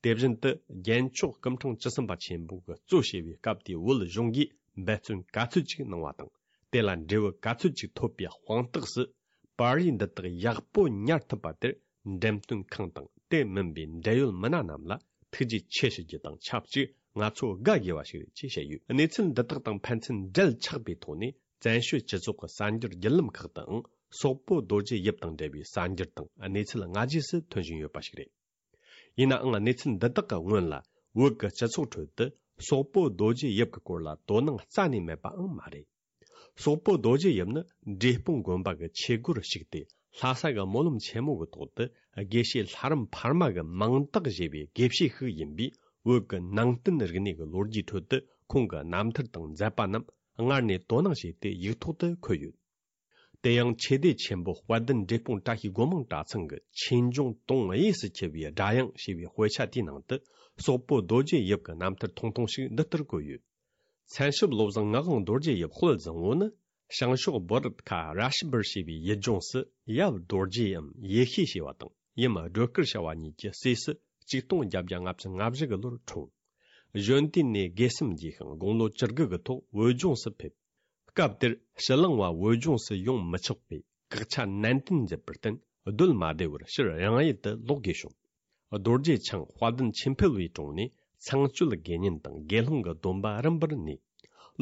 དེ་བཞིན་དུ་རྒྱལ་མཆོག་སྐུ་ཕྲེང་བཅུ་གསུམ་པ་ཆེན་པོ་གིས་གཙོ་བྱས་པའི་སྐབས་དེའི་བོད་གཞུང་གིས་འབད་བརྩོན་ག་ཚོད་ཅིག་གནང་བ་དང་། དེ་ལ་འབྲས་བུ་ག་ཚོད་ཅིག་ཐོབ་པའི་དཔང་རྟགས་སུ། པར་རིས་འདི་དག་ཡག་པོ་ཉར་ཐུབ་པ་དེར་འགྲེམས་སྟོན་ཁང་དང་དེ་མིན་པའི་འབྲེལ་ཡོད་མི་སྣ་རྣམས་ལ་ཐུགས་རྗེ་ཆེ་ཞུ་རྒྱུ་དང་ཆབས་ཅིག་ང་ཚོ་དགའ་དགོས་པ་ཞིག་རེད་ཅེས་བཤད་ཡོད། གནས་ཚུལ་འདི་དག་དང་ཕན་ཚུན་འབྲེལ་ཆགས་པའི་ཐོག་ནས་བཙན་བྱོལ་སྤྱི་ཚོགས་ཀྱི་གསར་འགྱུར་བརྒྱུད་ལམ་ཁག་ཏུའང་སོག་པོ་རྡོ་རྗེ་ཡིབ་དང་འབྲེལ་བའི་གསར་འགྱུར་དང་གནས་ཚུལ་སྔ་རྗེས་སུ་ཐོན་བཞིན་ཡོད་པ་ཞིག་རེད། ཡིན་ནའང་གནས་ཚུལ་འདི་དག་གི་སྔོན་ལ་བོད་ཀྱི་སྤྱི་ཚོགས་ཁྲོད་དུ་སོག་པོ་རྡོ་རྗེ་ཡིབ་ཀྱི་སྐོར་ལ་དོ་སྣང་རྩ་ནས་མེད་པའང་མ་རེད། སོག་པོ་རྡོ་རྗེ་ཡིབ་ནི་འབྲས་སྤུངས་དགོན་པ་གི་ཆོས་སྒོར་ཞུགས་ཏེ་ལྷ་ས་གི་སྨོན་ལམ་ཆེན་མོ་གི་ཐོག་ཏུ་དགེ་བཤེས་ལྷ་རམས་འཕར་མ་གི་མིང་རྟགས་བཞེས་པའི་དགེ་བཤེས་ཤིག་ཡིན་པས། བོད་ཀྱི་ནང་བསྟན་རིག་གནས་ཀྱི་ལོ་རྒྱུས་ཁྲོད་དུ་ཁོང་གི་རྣམ་ཐར་དང་མཛད་པ་རྣམས་སྔར་ནས་དོ་སྣང་བྱས་ཏེ་ཡིག་ཐོག་ཏུ་འཁོད་ཡོད། དེ་ཡང་ཆོས་སྡེ་ཆེན་པོ་དཔལ་ལྡན་འབྲས་སྤུངས་བཀྲ་ཤིས་སྒོ་མང་གྲྭ་ཚང་གི་ཆོས་འབྱུང་དུང་གཡས་སུ་འཁྱིལ་བའི་སྒྲ་དབྱངས་ཞེས་པའི་དཔེ་ཆ་དེའི་ནང་དུ་སོག་པོ་རྡོ་རྗེ་ཡིབ་ཀྱི་རྣམ་ཐར་ཐུང་ཐུང་ཞིག་འདི་ལྟར་བཀོད་ཡོད། མཚན་ཞབས་བློ་བཟང་ངག་དབང་རྡོ་རྗེ་ཡིབ་དཔལ་བཟང་པོ་ནི། བྱང་ཕྱོགས་བྷ་རད་ཁ་ར་ཤི་བར་ཞེས་པའི་ཡུལ་ལྗོངས་སུ་ཡབ་རྡོ་རྗེ་འམ་ཡེ་ཤེས་ཞེས་པ་དང་ཡུམ་སྒྲོལ་དཀར་ཞེས་པ་གཉིས་ཀྱི་སྲས་སུ་ཆིག་སྟོང་བརྒྱད་བརྒྱ་ལྔ་བཅུ་ང་བཞི་གི་ལོར་འཁྲུངས། གཞོན་དུས་ནས་དགེ་སེམས་རྒྱས་ཤིང་དགུང་ལོ་བཅུ་དགུ་གི་ཐོག་བོད་ལྗོངས་སུ་ཕེབས། སྐབས་དེར་ཕྱི་གླིང་བ་བོད་ལྗོངས་སུ་ཡོང་མི་ཆོག་པའི་བཀག་ཆ་ནན་ཏན་མཛད་པར་བརྟེན་སྡོད་མ་བདེ་བར་ཕྱིར་རང་ཡུལ་དུ་ལོག་དགོས་བྱུང་། རྡོ་རྗེ་འཆང་དཔལ་ལྡན་ཆོས་འཕེལ་བའི་དྲུང་ནས་ཚངས་སྤྱོད་དགེ་བསྙེན་དང་དགེ་སློང་གི་སྡོམ་པ་རིམ་པར་ནོས།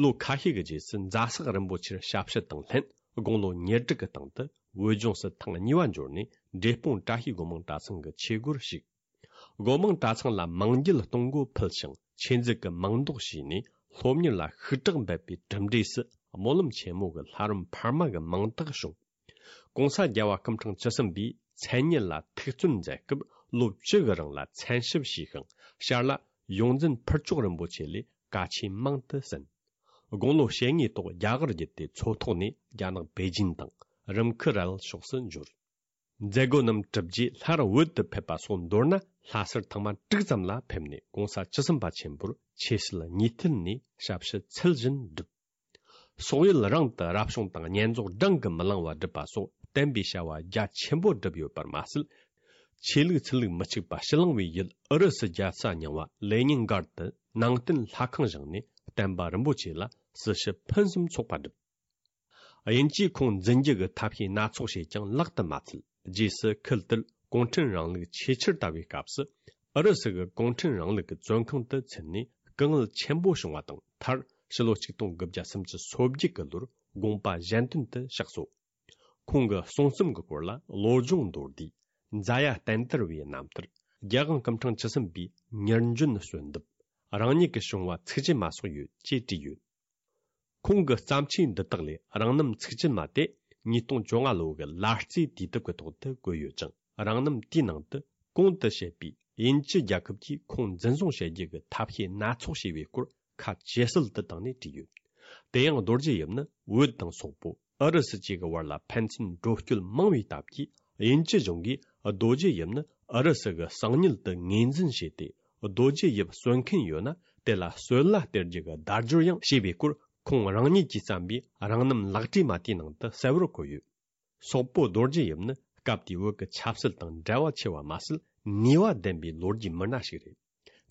ལོ་ཁ་ཤས་ཀྱི་རྗེས་སུ་རྫ་སག་རིན་པོ་ཆེར་ཞབས་ཕྱི་དང་ལྷན་དགུང་ལོ་ཉེར་དྲུག་གི་སྟེང་དུ་བོད་ལྗོངས་སུ་ཐེངས་གཉིས་པ་འབྱོར་ནས་འབྲས་སྤུངས་བཀྲ་ཤིས་སྒོ་མང་གྲྭ་ཚང་གི་ཆོས་སྒོར་ཞུགས། སྒོ་མང་གྲྭ་ཚང་ལ་མང་འགྱེད་གཏོང་སྒོ་ཕུལ་ཞིང་ཆོས་མཛད་ཀྱི་མིང་འདོགས་བྱས་ནས་སློབ་གཉེར་ལ་ཤུགས་དྲག་འབད་པའི་གྲུབ་འབྲས་སུ་སྨོན་ལམ་ཆེན་མོ་གི་ལྷ་རམས་འཕར་མ་གི་མིང་རྟགས་བྱུང་། གོང་ས་རྒྱལ་བ་སྐུ་ཕྲེང་བཅུ་གསུམ་པས་མཚན་ཉིད་ལ་ཐུགས་བརྩོན་མཛད་སྐབས་ལོ་བཅུ་གི་རིང་ལ་མཚན་ཞབས་ཞུས་ཤིང་ཞར་ལ་ཡོངས་འཛིན་ཕུར་ལྕོག་རིན་པོ་ཆེ་ལས་བཀའ་ཆོས་མང་དུ་གསན། དགུང་ལོ་ཞེ་ལྔའི་ཐོག་རྒྱ་གར་བརྒྱུད་དེ་མཚོ་ཐོག་ནས་རྒྱ་ནག་པེ་ཅིན་དང་རིམ་ཁུ་རལ་ཕྱོགས་སུ་འབྱོར། མཛད་སྒོ་རྣམས་གྲུབ་རྗེས་སླར་བོད་དུ་ཕེབས་པ་སོགས་མདོར་ན་ལྷ་སར་ཐེངས་མ་དྲུག་ཙམ་ལ་ཕེབས་ནས་གོང་ས་བཅུ་གསུམ་པ་ཆེན་པོར་ཆོས་སྲིད་གཉིས་ཐད་ནས་ཞབས་ཕྱི་ཚུལ་བཞིན་བསྒྲུབས། སོག་ཡུལ་རང་དུ་རབ་བྱུང་དང་བསྙེན་རྫོགས་བགྲང་གིས་མི་ལང་བ་བསྒྲུབས་པ་སོགས་བསྟན་པའི་བྱ་བ་རྒྱ་ཆེན་པོ་བསྒྲུབས་ཡོད་པར་མ་ཟད། ཆོས་ལུགས་ཚུལ་ལུགས་མི་གཅིག་པ་ཕྱི་གླིང་བའི་ཡུལ་ཨུ་རུ་སུ་རྒྱལ་ས་རྙིང་བ་ལེ་ཉིན་སྒར་དུ་ནང་བསྟན་ལྷ་ཁང་བཞེངས་ནས་བསྟན་པ་རིན་པོ་ཆེ་ལ་སྲི་ཞུ་ཕུན་སུམ་ཚོགས་པ་བསྒྲུབས། དབྱིན་ཇིས་ཁོང་འཛིན་རྒྱུ་གི་ཐབས་ཤེས་སྣ་ཚོགས་བྱས་ཀྱང་ལག་ཏུ་མ་ཚུད། རྗེས་སུ་ཁུལ་དེར་གུང་ཁྲན་རིང་ལུགས་ཆེས་ཆེར་དར་བའི་སྐབས་སུ་ཨུ་རུ་སུ་གི་གུང་ཁྲན་རིང་ལུགས་ཀྱི་བཙོན་ཁང་དུ་ཚུད་ནས་སྐུ་ངལ་ཆེན་པོ་བྱུང་བ་དང་མཐར་ཕྱི་ལོ་ཆིག་སྟོང་དགུ་བརྒྱ་སུམ་ཅུ་སོ་བརྒྱད་ཀྱི་ལོར་དགོངས་པ་གཞན་དོན་དུ་གཤེགས་སོ། ཁོང་གི་གསུང་རྩོམ་གྱི་སྐོར་ལ་བློ་སྦྱོང་མདོར་བསྡུས། མཛའ་ཡ་བསྟན་དར་བའི་རྣམ་ཐར། རྒྱལ་དབང་སྐུ་ཕྲེང་བཅུ་གསུམ་པའི་མྱུར་འབྱོན་གསོལ་འདེབས། རང་ཉིད་ཀྱི་བྱུང་བ་ཚིག་བཅད་མ་སོགས་ཡོད་ཅེས་བྲིས་ཡོད། ཁོང་གི་བརྩམས་ཆོས་འདི་དག་ལས་རང་རྣམ་ཚིག་བཅད་མ་དེ་ཉིས་སྟོང་བཅོ་ལྔ་ལོ་གི་ལ་རྩེའི་དུས་དེབ་ཀྱི་ཐོག་ཏུ་བཀོད་ཡོད་ཅིང་རང་རྣམ་དེའི་ནང་དུ་གོང་དུ་བཤད་པའི་དབྱིན་ཇི་རྒྱལ་ཁབ་ཀྱིས་ཁོང་འཛིན་བཟུང་བྱེད་རྒྱུ་གི་ཐབས་ཤེས་སྣ་ཚོགས་བྱས་པའི་སྐོར་ཁ་ཇེ་གསལ་དུ་བཏང་ནས་བྲིས་ཡོད། དེ་ཡང་རྡོ་རྗེ་ཡིབ་ནི་བོད་དང་སོག་པོ་ཨུ་རུ་སུ་བཅས་ཀྱི་བར་ལ་ཕན་ཚུན་འགྲོ་སྐྱོད་མང་བའི་སྟབས་ཀྱིས་དབྱིན་ཇི་གཞུང་གིས་རྡོ་རྗེ་ཡིབ་ནི་ཨུ་རུ་སུ་གི་གསང་ཉུལ་དུ་ངོས་འཛིན་བྱས་ཏེ། རྡོ་རྗེ་ཡིབ་གསོད་མཁན་ཡོད་ན་དེ་ལ་གསོད་གླ་སྟེར་རྒྱུ་གི་བརྡ་སྦྱོར་ཡང་བྱས་པའི་སྐོར་ཁོང་རང་ཉིད་ཀྱིས་བརྩམས་པའི་རང་རྣམ་ལག་བྲིས་མ་དེའི་ནང་དུ་གསལ་བོར་འཁོད་ཡོད། སོག་པོ་རྡོ་རྗེ་ཡིབ་ནི་སྐབས་དེའི་བོད་ཀྱི་ཆབ་སྲིད་དང་འབྲེལ་བ་ཆེ་བ་མ་ཟད་ནུས་པ་ལྡན་པའི་ལོ་རྒྱུས་མི་སྣ་ཞིག་རེད།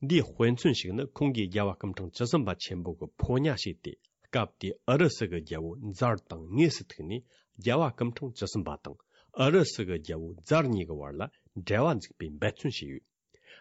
འདིའི་དཔེ་མཚོན་ཞིག་ནི་ཁོང་གིས་རྒྱལ་བ་སྐུ་ཕྲེང་བཅུ་གསུམ་པ་ཆེན་པོ་གི་ཕོ་ཉ་བྱས་ཏེ་སྐབས་དེའི་ཨུ་རུ་སུ་གི་རྒྱལ་པོ་ཛར་དང་དངོས་སུ་ཐུག་ནས་རྒྱལ་བ་སྐུ་ཕྲེང་བཅུ་གསུམ་པ་དང་ཨུ་རུ་སུ་གི་རྒྱལ་པོ་ཛར་གཉིས་ཀྱི་བར་ལ་འབྲེལ་བ་འཛུགས་པའི་འབད་བརྩོན་བྱས་ཡོད།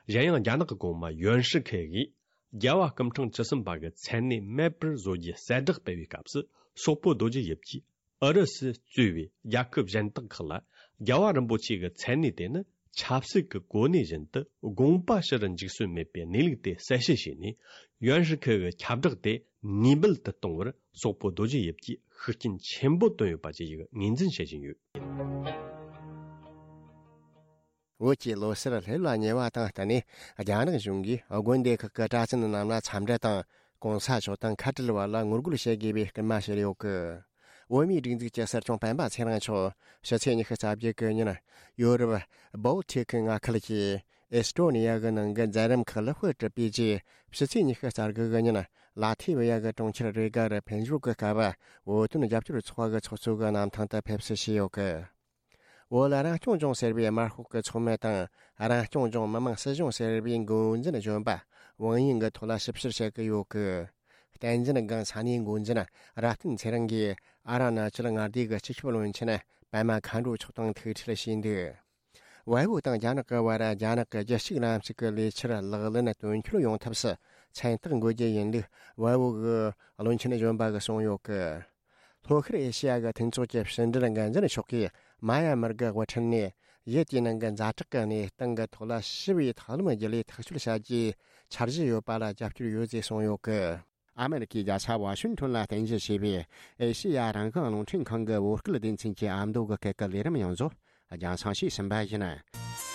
གཞན་ཡང་རྒྱ་ནག་གི་གོང་མ་ཡོན་ཧྲི་ཁེ་གིས་རྒྱལ་བ་སྐུ་ཕྲེང་བཅུ་གསུམ་པ་གི་མཚན་གནས་མེད་པར་བཟོ་རྒྱུའི་གསལ་བསྒྲགས་སྤེལ་བའི་སྐབས་སུ་སོག་པོ་རྡོ་རྗེ་ཡིབ་ཀྱིས་ཨུ་རུ་སུ་གཙོས་པའི་རྒྱལ་ཁབ་གཞན་དག་ཁག་ལ་རྒྱལ་བ་རིན་པོ་ཆེ་གི་མཚན་གནས་དེ་ནི་ཆབ་སྲིད་ཀྱི་གོ་གནས་བཞིན་དུ་དགོངས་པ་ཞུ་རུ་འཇུག་སྲོལ་མེད་པའི་གནས་ལུགས་དེ་གསལ་བཤད་བྱས་ནས་ཡོན་ཧྲི་ཁེ་གི་ཁྱབ་བསྒྲགས་དེ་ནུས་མེད་དུ་གཏོང་བར་སོག་པོ་རྡོ་རྗེ་ཡིབ་ཀྱིས་ཤུགས་རྐྱེན་ཆེན་པོ་བཏོན་ཡོད་པ་བཅས་ཀྱི་ངོས་འཛིན་བྱེད་བཞིན་ཡོད། བོད་ཀྱི་ལོ་གསར་སླེབས་ལ་ཉེ་བ་དང་བསྟུན་ནས་རྒྱ་ནག་གཞུང་གིས་དགོན་སྡེ་ཁག་གི་གྲྭ་བཙུན་རྣམས་ལ་འཚམས་འདྲི་དང་གོང་ས་མཆོག་དང་ཁ་བྲལ་བ་ལ་ངོ་རྒོལ་བྱེད་དགོས་པའི་སྐུལ་མ་བྱས་ཡོད་གི། བོད་མིའི་སྒྲིག་འཛུགས་ཀྱི་སྲིད་སྐྱོང་སྤེན་པ་ཚེ་རིང་མཆོག་ཕྱི་ཚེས་ཉི་ཤུ་རྩ་བརྒྱད་གི་ཉིན་ཡོ་རོབ་བོལ་ཏིག་མངའ་ཁུལ་གྱི་ཨེ་སི་ཏྲོ་ནི་ཡ་གི་ནང་གི་མཛད་རིམ་ཁག་ལ་དཔེ་ཁྲིད་པའི་རྗེས་ཕྱི་ཚེས་ཉི་ཤུ་རྩ་དགུ་གི་ཉིན་ལ་ཐི་བི་ཡ་གི་གྲོང་ཁྱེར་རེ་ག་རུ་ཕེབས་འབྱོར་གྱི་སྐབས་བོད་དོན་རྒྱབ་སྐྱོར་ཚོགས་པ་གི་ཚོགས་གཙོ་གི་གནམ་ཐང་དུ་ཕེབས་བསུ་བྱས་ཡོད་གི། བོད་ལ་རང་སྐྱོང་ལྗོངས་ཟེར་བའི་དམར་ཤོག་གི་ཚོགས་མི་དང་རང་སྐྱོང་ལྗོངས་མི་དམངས་སྲིད་གཞུང་ཟེར་བའི་འགོ་འཛིན་གཞོན་པ་དབང་ཡིན་གྱི་ཐོག་ལ་ཞིབ་བཤེར་བྱེད་ཀྱི་ཡོད་གི། བསྟན་འཛིན་སྒང་ས་གནས་འགོ་འཛིན་རབ་བརྟན་ཚེ་རིང་གིས་ཨ་ར་ན་ཅལ་མངའ་སྡེ་གི་སྤྱི་ཁྱབ་བློན་ཆེན་པད་མ་མཁའ་འགྲོ་མཆོག་དང་ཐུག་འཕྲད་བྱས་འདུག། བལ་པོ་དང་རྒྱ་ནག་གི་བར་རྒྱ་ནག་གི་རྒྱལ་གཅེས་ལམ་ཞིག་གི་ལས་འཆར་ལག་ལེན་དོན་འཁྱོལ་ཡོང་ཐབས་སུ་མཚན་རྟགས་འགོད་རྒྱུ་ཡིན་ལུགས་བལ་པོ་གི་བློན་ཆེན་གཞོན་པ་གིས་གསུངས་ཡོད་གི། ལྷོ་ཤར་ཨེ་ཤེ་ཡ་གི་མཐུན་ཚོགས་ཀྱི་ཕྱི་འབྲེལ་འགན་འཛིན་མཆོག་གིས་མ་ཡ་མར་གི་དབུ་ཁྲིད་ནས་ཡུལ་དེའི་ནང་གི་ཛ་དྲག་གི་གནས་སྟངས་ཀྱི་ཐོག་ལ་ཞི་བའི་ཐབས་ལམ་བརྒྱུད་ལས་ཐག་གཅོད་བྱ་རྒྱུའི་འཆར་གཞི་ཡོད་པ་ལ་རྒྱབ་སྐྱོར་ཡོད་ཅེས་གསུངས་ཡོད་གི། ཨ་མེ་རི་ཁའི་རྒྱལ་ས་ཝ་ཤིང་ཏོན་ལ་རྟེན་གཞི་བྱས་པའི་ཨེ་ཤེ་ཡ་རང་དབང་རླུང་འཕྲིན་ཁང་གི་བོད་སྐད་སྡེ་ཚན་གྱི་ཨ་མདོ་གི་སྐད་ཀྱི་ལས་རིམ་ཡོངས་རྫོགས་རྒྱང་སྲིང་ཞུས་ཟིན་པ་ཡིན།